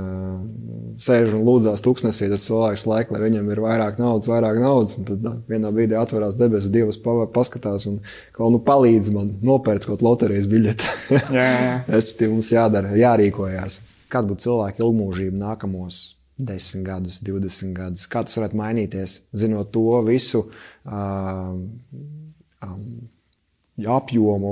sēž un lūdzās tuksnesī, tas cilvēks laik, lai viņam ir vairāk naudas, un tad vienā brīdī atverās debesis, Dievs paskatās un palīdz man nopērts kaut loterijas biļeti. Jā. Respektīvi, mums jādara, jārīkojās. Kāda būtu cilvēka ilgmūžība nākamos 10 gadus, 20 gadus? Kā tas varētu mainīties, zinot to visu apjomu,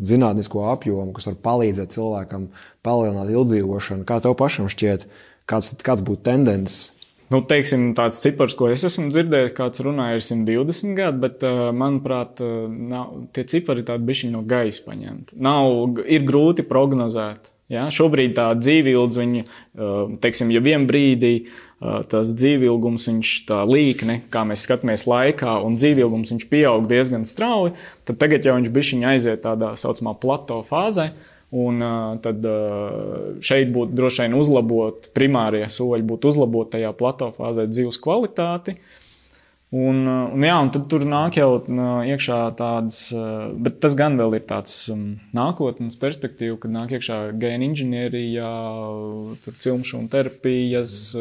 zinātnisko apjomu, kas var palīdzēt cilvēkam palielināt ilgdzīvošanu? Kā tev pašam šķiet, kāds būtu tendences? Teiksim, tāds cipars, ko es esmu dzirdējis, kāds runāja, ir 120 gadi, bet, manuprāt, tie cipari tādi bišķiņi no gaisa paņemti. Ir grūti prognozēt. Ja? Šobrīd tā dzīvildze, teiksim, ja vien brīdī tas dzīvilgums, viņš tā līkne, kā mēs skatāmies laikā, un dzīvilgums viņš pieaug diezgan strauji, tad tagad jau viņš bišķiņi aiziet tādā saucamā plato fāzē, un tad šeit būtu droši vien uzlabot, primārie soļi būtu uzlabot tajā plato fāzē dzīves kvalitāti. Un tad tur nāk jau iekšā tādas, bet tas gan vēl ir tāds nākotnes perspektīva, kad nāk iekšā gēna inženierija, tur cilmšūnu terapijas,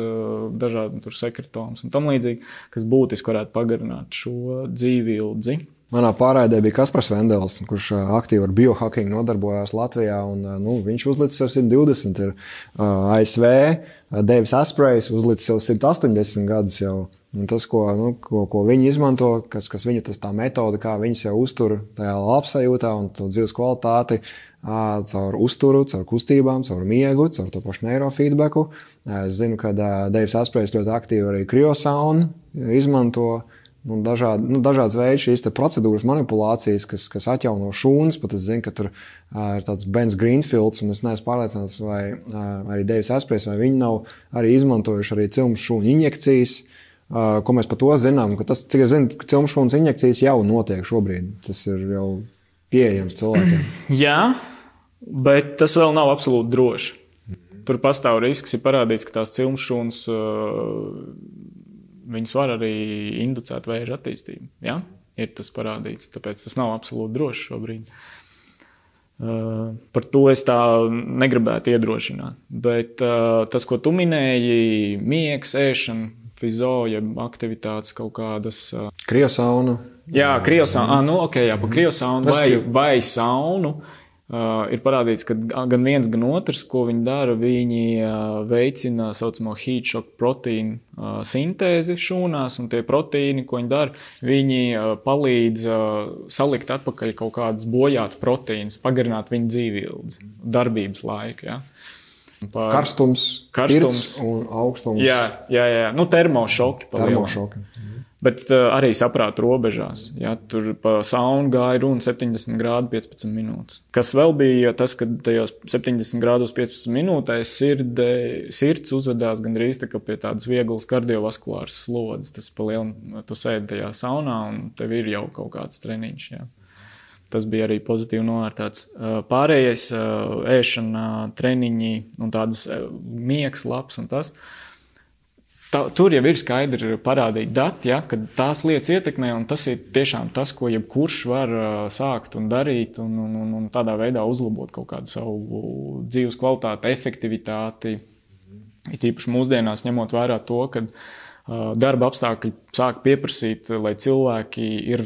dažādi tur sekretomas un tam līdzīgi, kas būtiski varētu pagarināt šo dzīvildzi. Manā pārraidē bija Kaspars Vendels, kurš aktīvi ar biohacking nodarbojās Latvijā, un viņš uzlicis sev 120, ir ASV, Davis Asprejs uzlicis sev 180 gadus jau. Un tas, ko viņi izmanto, kas viņu tā metode, kā viņas jau uztur tajā labsajūtā un to dzīves kvalitāti caur uzturu, caur kustībām, caur miegu, caur to pašu neirofeedbacku. Es zinu, ka Davis Asprejs ļoti aktīvi arī kriosaunu izmanto. Dažādas veids šīs procedūras manipulācijas, kas atjauno šūnas, pat es zinu, ka tur ir tāds Bens Greenfields, un es neesmu pārliecināts, vai arī Davis Asprejs, vai viņi nav arī izmantojuši arī cilmes šūnu injekcijas, ko mēs par to zinām, ka tas, cik es zinu, cilmes šūnas injekcijas jau notiek šobrīd. Tas ir jau pieejams cilvēkiem. Jā, bet tas vēl nav absolūti droši. Tur pastāv risks, ir parādīts, ka tās cilmes šūnas viņas var arī inducēt vēža attīstību. Ja? Ir tas parādīts, tāpēc tas nav absolūti droši šobrīd. Par to es tā negribētu iedrošināt. Bet tas, ko tu minēji, miegs, ēšana, fizoja, aktivitātes kaut kādas. Kriosauna. Jā, kriosauna. Pa kriosaunu vai saunu. Ir parādīts, ka gan viens, gan otrs, ko viņi dara, viņi veicina saucamo heat shock proteīnu sintēzi šūnās, un tie proteīni, ko viņi dara, viņi palīdz salikt atpakaļ kaut kādas bojātas proteīnas, pagarināt viņu dzīvildzi, darbības laiku, ja. Karstums, pirts un augstums. Jā. Termošoki. Termošoki. Bet arī saprāta robežās. Ja, tur pa saunu gāja runa 70 grādu 15 minūtes. Kas vēl bija tas, ka tajos 70 grādos 15 minūtēs sirds uzvedās gandrīz tā kā pie tādas vieglas kardiovaskulāras slodzes. Tas pa lielu, tu sēdi tajā saunā un tev ir jau kaut kāds treniņš. Ja. Tas bija arī pozitīvi novērtēts. Pārējais ēšana, treniņi un tādas miegs labs un tas. Tur jau ir skaidri parādīti dati, ja, kad tās lietas ietekmē, un tas ir tiešām tas, ko jebkurš var sākt un darīt, un tādā veidā uzlabot kaut kādu savu dzīves kvalitāti, efektivitāti. Ir īpaši mūsdienās ņemot vērā to, ka darba apstākļi sāk pieprasīt, lai cilvēki ir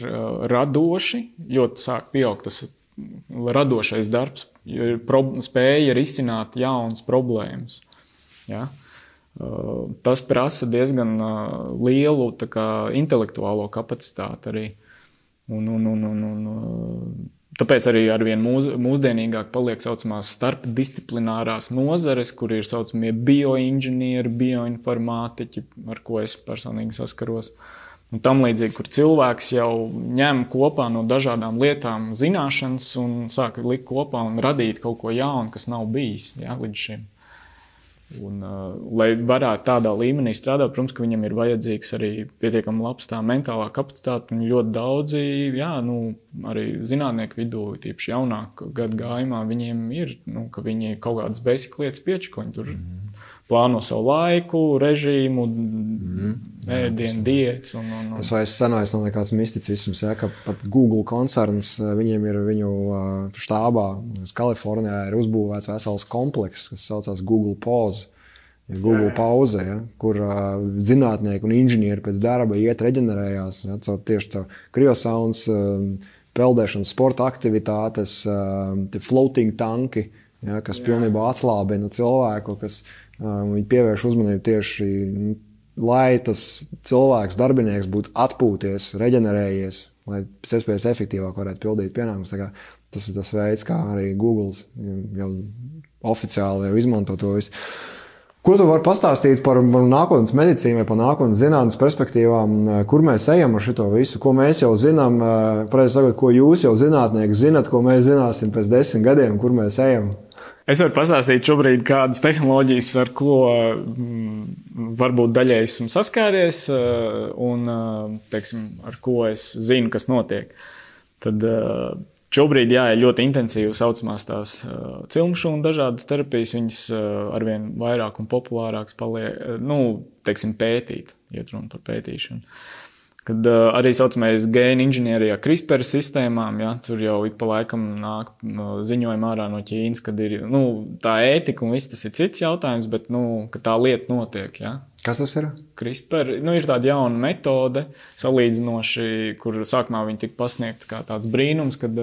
radoši, ļoti sāk pieaugt tas radošais darbs, spēja risināt jaunas problēmas. Ja. Tas prasa diezgan lielu intelektuālo kapacitāti arī. Tāpēc arī arvien mūsdienīgāk paliek saucamās starpdisciplinārās nozares, kur ir saucamie bioinženieri, bioinformātiķi, ar ko es personīgi saskaros. Un tam līdzīgi, kur cilvēks jau ņem kopā no dažādām lietām zināšanas un sāk likt kopā un radīt kaut ko jaunu, kas nav bijis līdz šim. Un, lai varētu tādā līmenī strādāt, protams, ka viņam ir vajadzīgs arī pietiekami labs tā mentālā kapacitāte, un ļoti daudzi, arī zinātnieku vidū, tīpaši jaunāk gadu gājumā, viņiem ir, ka viņi kaut kādas basic lietas piečakoņi tur plāno savu laiku, režīmu, ēdienu, diētas. Tas vairs senais nav nekāds misticisms, ja, ka pat Google koncerns, viņiem ir viņu štābā, Kalifornijā ir uzbūvēts vesels komplekss, kas saucās Google Pause, Google pauze, ja, kur zinātnieki un inženieri pēc darba iet reģenerējās, ja, tieši caur kriosauns, peldēšanas sporta aktivitātes, floating tanki, ja, kas pilnībā atslābina cilvēku, kas viņi pievērš uzmanību tieši, lai tas cilvēks, darbinieks būtu atpūties, reģenerējies, lai pēc iespējas efektīvāk varētu pildīt pienākumus. Tā kā tas ir tas veids, kā arī Google jau oficiāli jau izmanto to visu. Ko tu vari pastāstīt par nākotnes medicīnu vai par nākotnes zinātnes perspektīvām, kur mēs ejam ar šito visu, ko mēs jau zinām, pareizi sakot, ko jūs jau zinātnieki zinat, ko mēs zināsim pēc 10 gadiem, kur mēs ejam? Es varu pastāstīt šobrīd kādas tehnoloģijas, ar ko varbūt daļai esmu saskāries un, teiksim, ar ko es zinu, kas notiek. Tad šobrīd, jā, ir ļoti intensīvi saucamās tās cilmšūnu dažādas terapijas, viņas arvien vairāk un populārāks paliek, teiksim, pētīt, iet runa par pētīšanu. Kad arī saucamais gēnu inženierijā CRISPR sistēmām, ja, tur jau ik pa laikam nāk ziņojumi ārā no Ķīnas, kad ir, tā ētika un viss tas ir cits jautājums, bet, ka tā lieta notiek, ja. Kas tas ir? CRISPR, ir tāda jauna metode, salīdzinoši, kur sākumā viņi tika pasniegts kā tāds brīnums, kad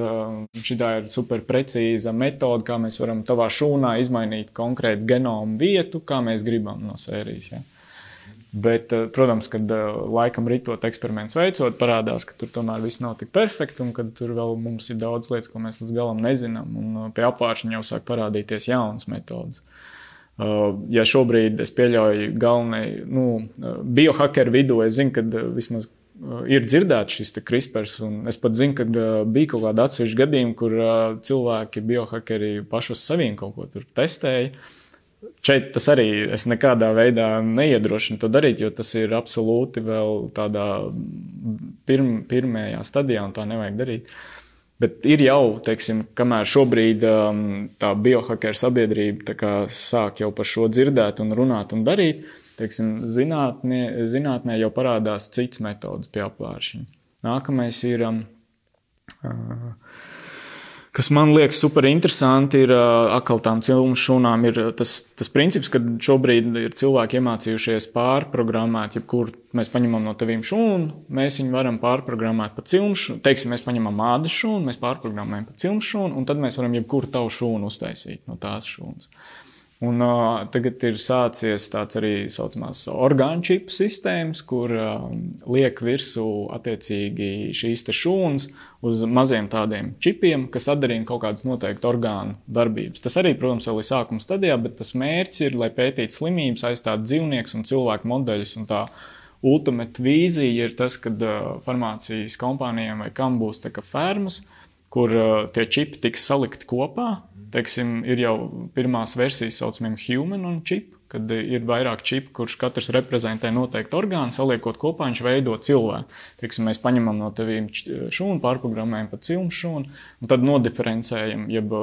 šitā ir super precīza metode, kā mēs varam tavā šūnā izmainīt konkrētu genomu vietu, kā mēs gribam no sērijas, ja. Bet, protams, kad laikam ritot eksperiments veicot, parādās, ka tur tomēr viss nav tik perfekti un kad tur vēl mums ir daudz lietas, ko mēs līdz galam nezinām. Un pie apvāršņa jau sāk parādīties jaunas metodas. Ja šobrīd es pieļauju galvenai, biohakeru vidū, es zinu, ka vismaz ir dzirdēts šis CRISPRs, un es pat zinu, ka bija kaut kāda atsevišķa gadījuma, kur cilvēki biohakeri paši uz saviem kaut ko tur testēja. Šeit tas arī es nekādā veidā neiedrošinu to darīt, jo tas ir absolūti vēl tādā pirmajā stadijā un tā nevajag darīt. Bet ir jau, teiksim, kamēr šobrīd tā biohakeru sabiedrība tā kā sāk jau par šo dzirdēt un runāt un darīt, teiksim, zinātnē jau parādās cits metodas pie apvāršņa. Nākamais ir... Kas man liekas super interesanti, ir atkal tām cilmu šūnām, ir tas princips, ka šobrīd ir cilvēki iemācījušies pārprogrammēt, jebkur mēs paņemam no tevīm šūnu, mēs viņu varam pārprogrammēt pa cilmu šūnu, teiksim, mēs paņemam ādas šūnu, mēs pārprogrammējam pa cilmu šūnu, un tad mēs varam jebkuru tavu šūnu uztaisīt no tās šūnas. Un tagad ir sācies tāds arī saucamās orgānu čipu sistēmas, kur liek virsū attiecīgi šīs te šūnas uz maziem tādiem čipiem, kas atdarina kaut kādas noteikti orgānu darbības. Tas arī, protams, vēl ir sākuma stadijā, bet tas mērķis ir, lai pētītu slimības, aizstāt dzīvniekus un cilvēku modeļus. Un tā ultimate vīzija ir tas, kad farmācijas kompānijām vai kam būs tā kā fermas, kur tie čipi tiks salikti kopā. Teiksim, ir jau pirmās versijas saucamiem human un chip, kad ir vairāk čipu, kurš katrs reprezentē noteikti orgānu, saliekot kopā, viņš veido cilvēku. Teiksim, mēs paņemam no tevīm šūnu, pārprogrammējam pa cilmu šūnu, un tad nodiferencējam, jeb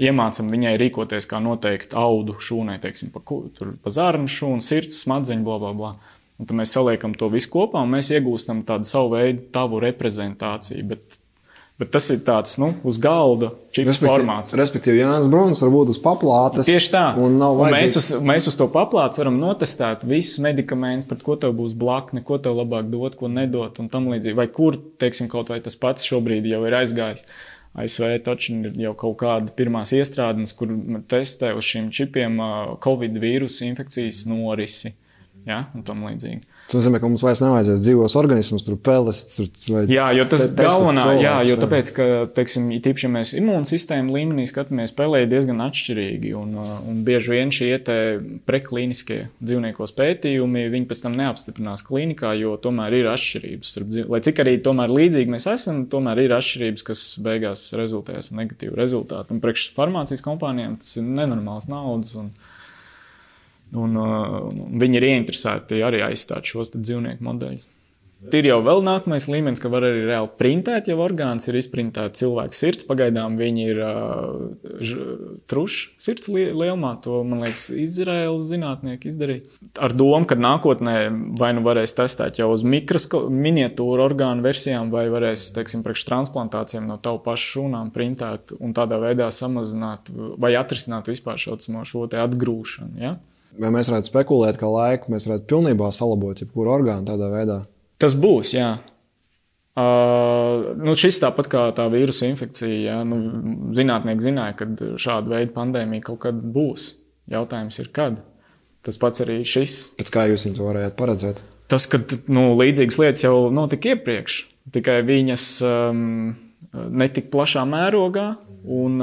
iemācam viņai rīkoties kā noteikti audu šūnai, teiksim, pa zarnu šūnu, sirds, smadzeņu, blablabla. Un tad mēs saliekam to visu kopā, un mēs iegūstam tādu savu veidu tavu reprezentāciju, Bet tas ir tāds, uz galda čipu formāts. Respektīvi, Jānis Bruns var būt uz paplātes. Tieši tā. Un mēs uz to paplātes varam notestēt visas medikamentus, pret ko tev būs blakne, ko tev labāk dot, ko nedot un tam līdzīgi. Vai kur, teiksim, kaut vai tas pats šobrīd jau ir aizgājis. ASV taču ir jau kaut kāda pirmās iestrādes, kur testē uz šiem čipiem Covid vīrusu infekcijas norisi. Ja, un tam līdzīgi. Tas nozīmē, ka mums vairs nevajadzēs dzīvos organismus, tur peles, vai... Jā, jo tas galvenā, cilvēks, jo tāpēc, ka, teiksim, tīpaši, ja mēs imūnsistēmu līmenī skatāmies, pelē diezgan atšķirīgi, un bieži vien šie preklīniskie dzīvniekos pētījumi, viņi pēc tam neapstiprinās klīnikā, jo tomēr ir atšķirības. Lai cik arī tomēr līdzīgi mēs esam, tomēr ir atšķirības, kas beigās rezultējas negatīvu rezultātu. Un priekš farmācijas kompānijām tas ir nenormāls naudas, un viņi ir ieinteresēti arī aizstāt šos dzīvnieku modeļus. Ir jau vēl nākamais līmenis, ka var arī reāli printēt, jau orgāns ir izprintēts cilvēka sirds. Pagaidām viņi ir truši sirds lielumā, to, man liekas, Izraēlas zinātnieki izdarīja. Ar domu, ka nākotnē vai nu varēs testēt jau uz miniatūru orgānu versijām, vai varēs, teiksim, priekš transplantācijām no tavu pašu šūnām printēt un tādā veidā samazināt vai atrisināt vispār šo te atgrūšanu, ja? Vai mēs varētu spekulēt, ka laiku mēs varētu pilnībā salabot jebkuru orgānu tādā veidā? Tas būs, jā. Šis tāpat kā tā vīrusa infekcija, jā. Zinātnieki zināja, ka šāda veida pandēmija kaut kad būs. Jautājums ir, kad. Tas pats arī šis. Pēc kā jūs viņu to varējāt paredzēt? Tas, ka līdzīgas lietas jau notika iepriekš, tikai viņas netik plašā mērogā, un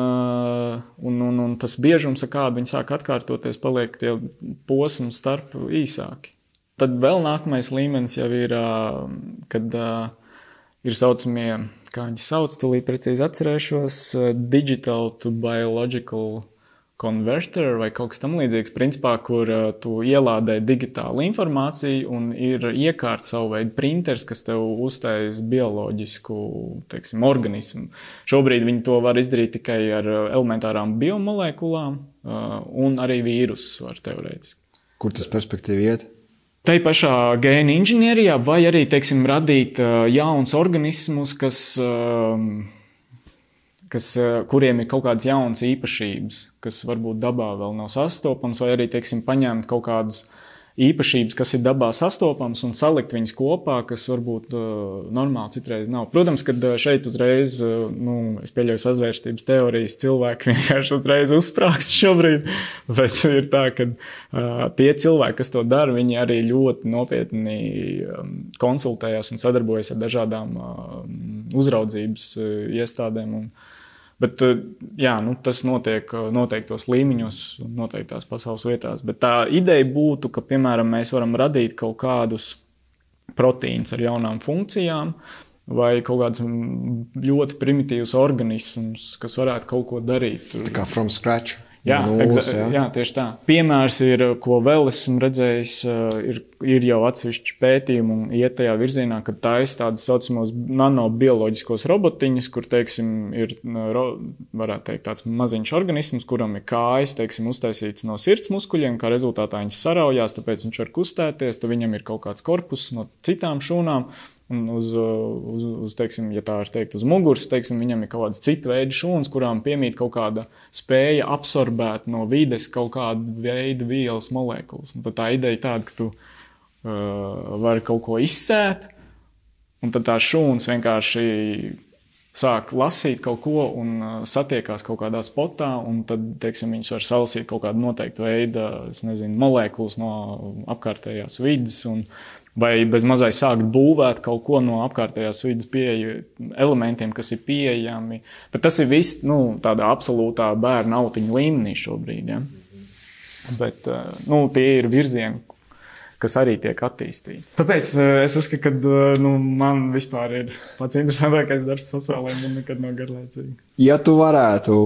tas biežums, ar kādu viņi sāk atkārtoties, paliek tie posmi starp īsāki. Tad vēl nākamais līmenis jau ir, kad ir saucamie, kā viņi sauc, tūlīt precīzi atcerēšos, digital to biological converter vai kaut kas tam līdzīgs, principā, kur tu ielādē digitālu informāciju un ir iekārt savu veidu printers, kas tev uztais bioloģisku, teiksim, organismu. Šobrīd viņi to var izdarīt tikai ar elementārām biomolekulām un arī vīrusus var teorētiski. Kur tas perspektīvi iet? Tai pašā gēna inženierijā vai arī, teiksim, radīt jauns organismus, kuriem ir kaut kādas jaunas īpašības, kas varbūt dabā vēl nav sastopams, vai arī, teiksim, paņemt kaut kādas īpašības, kas ir dabā sastopams un salikt viņas kopā, kas varbūt normāli citreiz nav. Protams, kad šeit uzreiz, es pieļauju sazvērstības teorijas, cilvēki vienkārši uzreiz uzsprāgst šobrīd, bet ir tā, ka tie cilvēki, kas to dara, viņi arī ļoti nopietni konsultējās un sadarbojas ar dažādām uzraudzības iestādēm. Bet, tas notiek noteiktos līmeņos, noteiktās pasaules vietās. Bet tā ideja būtu, ka, piemēram, mēs varam radīt kaut kādus proteīnus ar jaunām funkcijām vai kaut kādus ļoti primitīvus organismus, kas varētu kaut ko darīt. Tā kā from scratch. Jā, tieši tā. Piemērs ir, ko vēl esmu redzējis, ir jau atsevišķi pētījumi un iet tajā virzienā, ka taisa tādas saucamos nanobioloģiskos robotiņus, kur, teiksim, ir, varētu teikt, tāds maziņš organisms, kuram ir kājas, teiksim, uztaisīts no sirds muskuļiem, kā rezultātā viņas saraujās, tāpēc viņš var kustēties, tad viņam ir kaut kāds korpus no citām šūnām. Un teiksim, ja tā var teikt, uz muguras, teiksim, viņam ir kaut kādas cita veida šūnas, kurām piemīt kaut kāda spēja absorbēt no vides kaut kādu veidu vielas molekulas. Un tad tā ideja tāda, ka tu vari kaut ko izsēt, un tad tā šūnas vienkārši sāk lasīt kaut ko un satiekās kaut kādā spotā, un tad, teiksim, viņas var salasīt kaut kādu noteiktu veidu, molekulas no apkārtējās vides, vai bez mazai sākt būvēt kaut ko no apkārtējās vidas elementiem, kas ir pieejami. Bet tas ir viss, tādā absolūtā bērna autiņa līmenī šobrīd, ja? Bet, tie ir virzieni, kas arī tiek attīstīti. Tāpēc es uzskatu, ka man vispār ir pats interesantākais darbs pasaulē, man nekad nav garlaicīgi. Ja tu varētu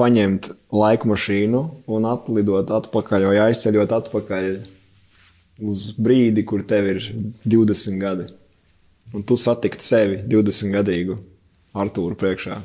paņemt laikmašīnu un atlidot atpakaļ vai aizceļot atpakaļ uz brīdi, kur tev ir 20 gadi, un tu satikt sevi 20-gadīgu Artūru priekšā,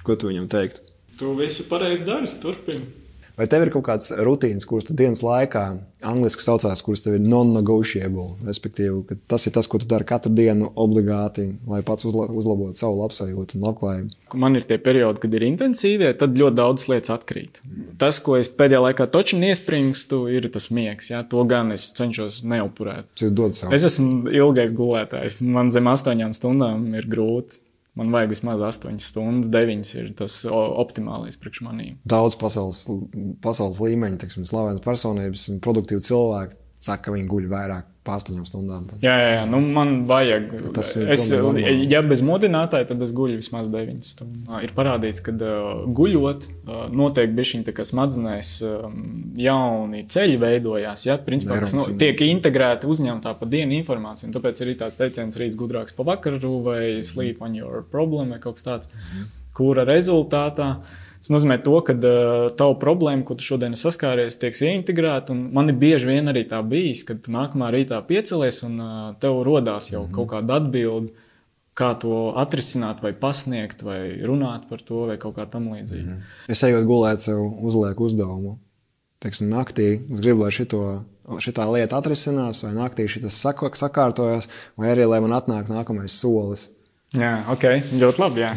ko tu viņam teiktu? Tu visu pareizi dari, turpini. Vai tev ir kaut kāds rutīns, kuras tu dienas laikā, angliski saucās, kuras tev ir non-negotiable, respektīvi, ka tas ir tas, ko tu dari katru dienu obligāti, lai pats uzlabotu savu labsajūtu un labklājību? Man ir tie periodi, kad ir intensīvie, tad ļoti daudz lietas atkrīt. Tas, ko es pēdējā laikā toči iespringstu, ir tas miegs. Ja? To gan es cenšos neupurēt. Es esmu ilgais gulētājs. Man zem 8 stundām ir grūti. Man vajag vismaz 8 stundas, 9 ir tas optimālais priekš manīm. Daudz pasaules līmeņi, teiksim, slavenas personības un produktīvi cilvēki saka, ka viņi guļ vairāk pa 8 stundām. Jā, man vajag. Ja bez modinātāja, tad es guļu vismaz 9 stundas. Ir parādīts, ka guļot notiek bišķiņ tā kā smadzenēs jauni ceļi veidojās, ja, principā, kas tiek integrēti uzņemtā pa dienu informāciju. Un tāpēc ir tāds teiciens rīts gudrāks pa vakaru vai sleep on your problem vai kaut kas tāds, kura rezultātā Tas nozīmē to, ka tavu problēmu, ko tu šodien saskāries, tiek ieintegrēta, un man ir bieži vien arī tā bijis, kad tu nākamā rītā piecelies un tev rodās jau kaut kāda atbilde, kā to atrisināt vai pasniegt, vai runāt par to, vai kaut kā tam līdzīgi. Es ejot gulēt, sev uzlieku uzdevumu. Teiksim, naktī es gribu, lai šitā lieta atrisinās, vai naktī šitas sakārtojas, vai arī, lai man atnāk nākamais solis. Jā, ļoti labi, jā.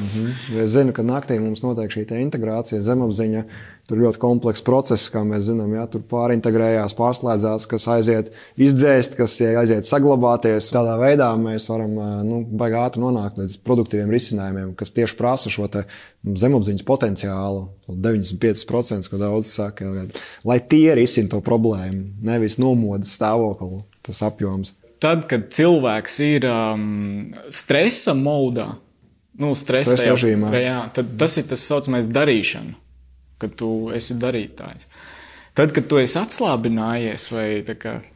Es zinu, ka naktī mums notiek šī integrācija, zemapziņa, tur ļoti komplekss process, kā mēs zinām, jā, tur pārintegrējās, pārslēdzās, kas aiziet izdzēst, kas aiziet saglabāties. Tādā veidā mēs varam baigi ātri nonākt līdz produktīviem risinājumiem, kas tieši prasa šo te zemapziņas potenciālu, 95%, ko daudz saka, lai tie risina to problēmu, nevis nomodas stāvokli, tas apjoms. Tad, kad cilvēks ir stresa modā, stresa režīmā, tad tas ir tas saucamais darīšana, kad tu esi darītājs. Tad, kad tu esi atslābinājies vai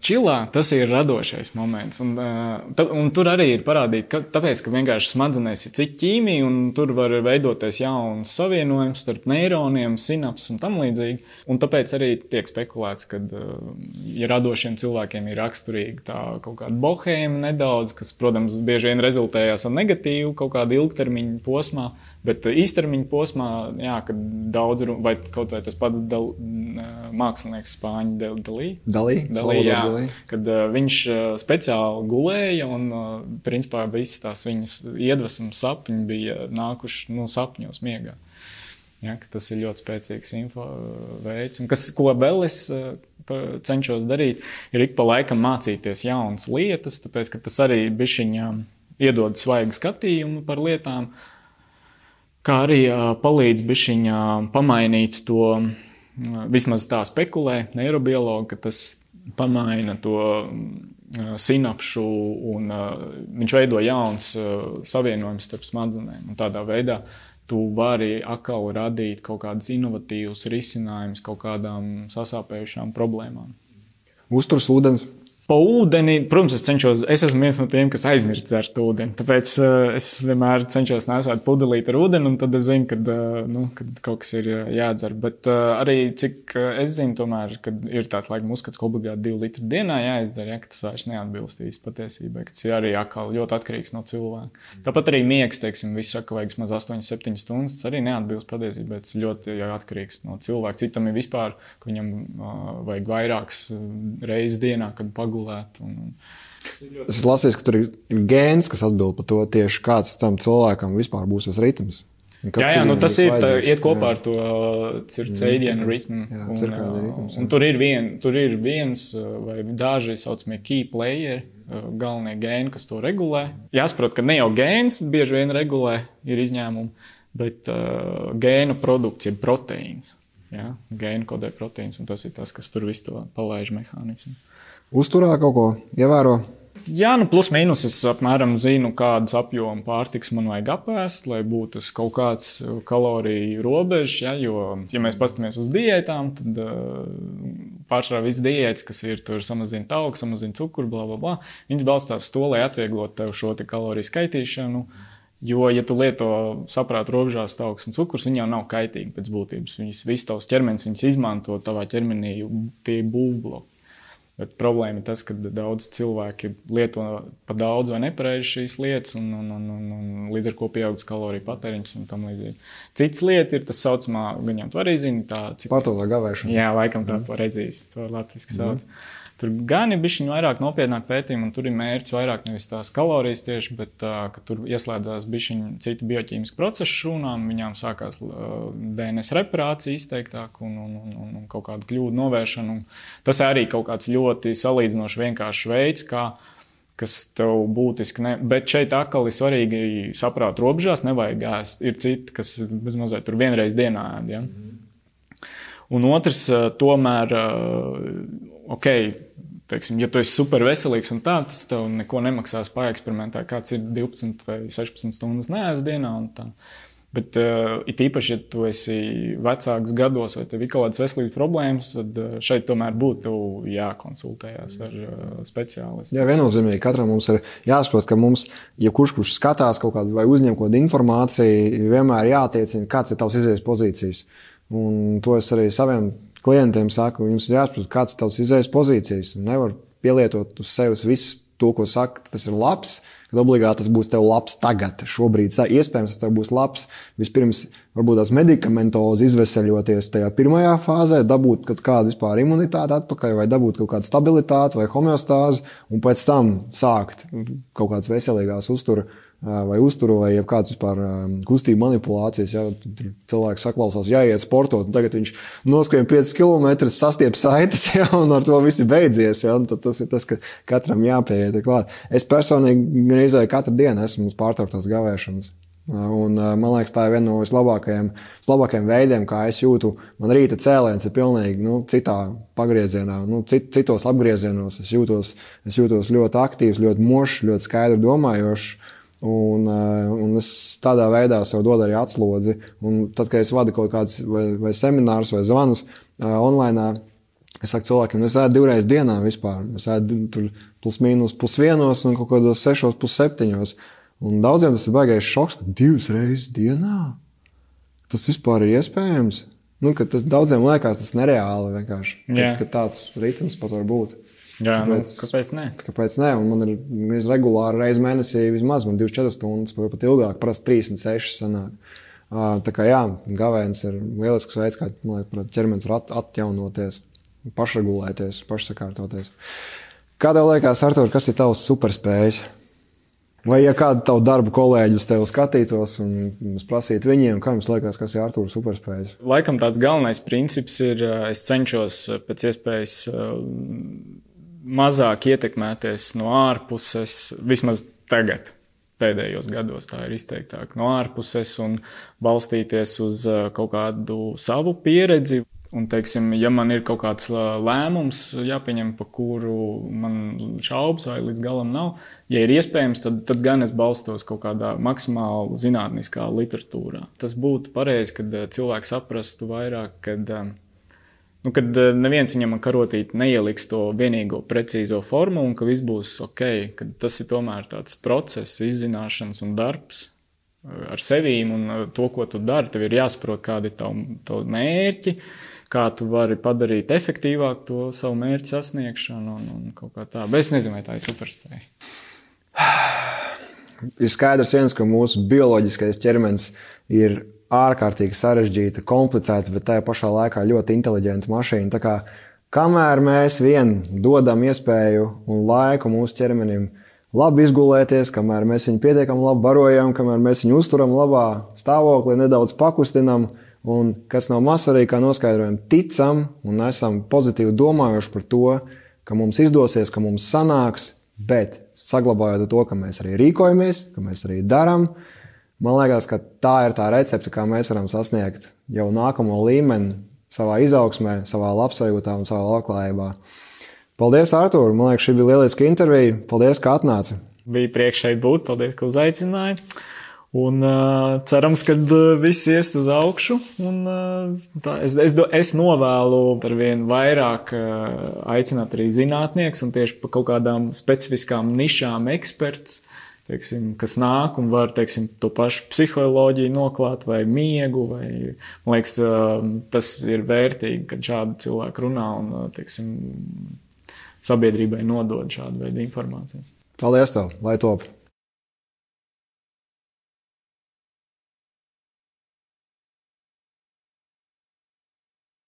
čilā, tas ir radošais moments. Un tur arī ir parādīt, tāpēc, ka vienkārši smadzenēs ir cita ķīmija, un tur var veidoties jauns savienojums starp neironiem, sinapses un tam līdzīgi. Un tāpēc arī tiek spekulēts, ka ja radošiem cilvēkiem ir raksturīga tā kaut kāda bohēma nedaudz, kas, protams, bieži vien rezultējās ar negatīvu kaut kādu ilgtermiņu posmā, bet īstermiņa posmā, jā, kad daudz, vai kaut vai tas pats mākslinieks Spāņu Dalī, kad viņš speciāli gulēja un, principā, visas tās viņas iedvesmas sapņi bija nākuši sapņos miegā. Ja, tas ir ļoti spēcīgs info veids. Un ko vēl es cenšos darīt, ir ik pa laikam mācīties jaunas lietas, tāpēc, ka tas arī bišķiņā iedod svaigu skatījumu par lietām, kā arī palīdz bišķiņā pamainīt to, vismaz tā spekulē neirobiologi, ka tas pamaina to sinapšu un viņš veido jauns savienojums starp smadzenēm. Un tādā veidā tu vari atkal radīt kaut kādus inovatīvus risinājumus kaut kādām sasāpējušām problēmām. Uzturs ūdens. Pa ūdeni, protams, es esmu viens no tiem, kas aizmirst dzert ūdeni, tāpēc es vienmēr cenšos nesāt pudelīt ar ūdeni, un tad es zinu, kad kaut kas ir jādzer. Bet arī, cik es zinu, tomēr, kad ir tāds laikam uzskats, ka obligāti 2 litri dienā jāizdzer, ka tas vairs neatbilstīs patiesībai, ka tas ir arī atkal ļoti atkarīgs no cilvēka. Tāpat arī miegs, teiksim, visi saka, vajag maz 8-7 stundas, tas arī neatbilst patiesībai, tas ļoti atkarīgs no cilvēka. Citam ir vispār, ka viņam vajag vairākas reizes dienā, kad pagulēt. Es lasīju, ka tur ir gēns, kas atbild par to tieši kāds tam cilvēkam vispār būs tas ritms. Jā, tas iet kopā ar to circadian ritmu. Un tur ir viens vai daži saucamie key player, galvenie gēni, kas to regulē. Jāsaprot, ka ne jau gēns bieži vien regulē, ir izņēmumi, bet gēnu produkts ir proteīns. Ja? Gēnu kodē proteīns, un tas ir tas, kas tur visu to palaiž mehānismu. Uzturā kaut ko ievēro? Jā, plus mīnus es apmēram zinu, kādas apjoma pārtiks man vajag apēst, lai būtu kaut kāds kaloriju robežs, ja, jo, ja mēs pastamies uz diētām, tad pārsvarā viss diētas, kas ir tur samazina tauku, samazina cukuru, bla. Viņas balstās to, lai atvieglot tev šo te kaloriju skaitīšanu, jo, ja tu lieto saprātu robežās tauks un cukurs, viņi jau nav kaitīgi pēc būtības. Viss tavs ķermenis, viņas izmanto tavā ķermenī, tie būvbloki. Bet problēma ir tas, ka daudz cilvēki lieto pa daudz vai nepareizi šīs lietas un līdz ar ko pieaugas kaloriju patēriņš un tam līdzīgi. Cits lieta ir tas saucamā, viņam tu arī zini, tā... Pārtotā gavēšana. Jā, laikam tā redzīs, to latviski sauc. Tur gan ir bišķiņ vairāk nopietnāk pētījumi, un tur ir mērķis vairāk nevis tās kalorijas tieši, bet ka tur ieslēdzās bišķiņ citi bioķīmiski procesi šūnām, viņām sākās DNS reparācija izteiktāk un kaut kādu kļūdu novēršanu. Tas arī kaut kāds ļoti salīdzinoši vienkāršs veids, kas tev būtiski bet šeit atkal ir svarīgi saprāt robežās, nevajag ēst. Ir citi, kas bezmazliet tur vienreiz dienā ēd, ja? Un otrs, tomēr, teiksim, ja tu esi super veselīgs un tā, tas tev neko nemaksās paeksperimentēt, kāds ir 12 vai 16 stundas neēst dienā un tā. Bet it īpaši, ja tu esi vecāks gados vai tev ir kaut kādas veselības problēmas, tad šeit tomēr būtu jākonsultējās ar speciālistu. Jā, viennozīmīgi. Katram mums ir jāsaprot, ka mums, ja kurš skatās kaut kādu vai uzņem kaut kādu informāciju, vienmēr jātiecina, kāds ir tavs izējas pozīcijas. Un to es arī saviem klientiem saku, jums ir jāsaprot, kāds ir tavs izējas pozīcijas. Un nevar pielietot uz sevis visu to, ko saka, tas ir labs, kad obligāti tas būs tev labs tagad. Šobrīd iespējams tas tev būs labs. Vispirms varbūt tās medikamentozi izveseļoties tajā pirmajā fāzē, dabūt kaut kādu vispār imunitāti atpakaļ vai dabūt kaut kādu stabilitāti vai homeostāzi un pēc tam sākt kaut kādas veselīgās uzturu vai kāds vispār kustību manipulācijas. Ja, cilvēks saklausās, jāiet sportot, un tagad viņš noskrien 5 km, sastiep saites, ja, un ar to viss ir beidzies. Ja, tad tas ir tas, ka katram jāpieiet klāt. Es personīgi reizē katru dienu esmu uz pārtrauktās gavēšanas. Un man liekas, tā ir viena no vislabākajiem veidiem, kā es jūtu. Man rīta cēliens ir pilnīgi citā pagriezienā, citos apgriezienos. Es jūtos ļoti aktīvs, ļoti mošs, ļoti skaidri domājošs. Un es tādā veidā sev dodu arī atslodzi. Un tad, kad es vadu kaut kāds vai seminārus vai zvanus online, es saku cilvēkiem, es ēdu 2 reizes dienā vispār. Es ēdu tur plus mīnus pusvienos un kaut kādos 6, pusseptiņos. Un daudziem tas ir baigais šoks, ka 2 reizes dienā tas vispār ir iespējams. Ka tas daudziem liekas tas nereāli vienkārši, ka tāds ritms pat var būt. Jā, kāpēc ne? Kāpēc ne? Un man ir regulāri reizi mēnesī vismaz, man 24 stundas, pat ilgāk, parasti 36 sanāk. Tā kā jā, gavēns ir lielisks veids, kā, man liekas, ķermenis var atjaunoties, pašregulēties, pašsakārtoties. Kā tev liekas, Artur, kas ir tavs superspējas? Vai ja kādu tavu darbu kolēģi uz tevi skatītos un prasītu viņiem, kā jums liekas, kas ir Artūra superspējas? Laikam tāds galvenais princips ir, es cenšos pēc iespējas mazāk ietekmēties no ārpuses, vismaz tagad, pēdējos gados tā ir izteiktāk, no ārpuses un balstīties uz kaut kādu savu pieredzi. Un, teiksim, ja man ir kaut kāds lēmums jāpieņem, pa kuru man šaubas vai līdz galam nav, ja ir iespējams, tad gan es balstos kaut kādā maksimāli zinātniskā literatūrā. Tas būtu pareizi, kad cilvēks saprastu vairāk, kad neviens viņam karotīt neieliks to vienīgo precīzo formu un ka viss būs ok, kad tas ir tomēr tāds process, izzināšanas un darbs ar sevīm un to, ko tu dari. Tev ir jāsaprot, kādi ir tavu mērķi, kā tu vari padarīt efektīvāk to savu mērķu sasniegšanu un kaut kā tā. Bet es nezinu, vai tā ir superspēja. Ir skaidrs viens, ka mūsu bioloģiskais ķermenis ir ārkārtīgi sarežģīta, komplicēta, bet tajā pašā laikā ļoti inteliģenta mašīna. Tā kā kamēr mēs vien dodam iespēju un laiku mūsu ķermenim labi izgulēties, kamēr mēs viņu pietiekami labi barojam, kamēr mēs viņu uzturam labā stāvoklī, nedaudz pakustinam, un kas nav maz arī, kā noskaidrojam, ticam un esam pozitīvi domājuši par to, ka mums izdosies, ka mums sanāks, bet saglabājot to, ka mēs arī rīkojamies, ka mēs arī daram, man liekas, ka tā ir tā recepte, kā mēs varam sasniegt jau nākamo līmeni savā izaugsmē, savā labsajūtā un savā labklājībā. Paldies, Artūr! Man liekas, šī bija lieliska intervija. Paldies, ka atnāci! Bija prieks šeit būt. Paldies, ka uzaicināji. Un cerams, ka viss iest uz augšu. Un, es novēlu ar vien vairāk aicināt arī zinātnieks un tieši pa kaut kādām specifiskām nišām eksperts, teiksim, kas nāk un var, teiksim, to pašu psiholoģiju noklāt vai miegu. Vai, man liekas, tas ir vērtīgi, kad šādi cilvēki runā un, teiksim, sabiedrībai nodod šādu veidu informāciju. Paldies tev, lai top!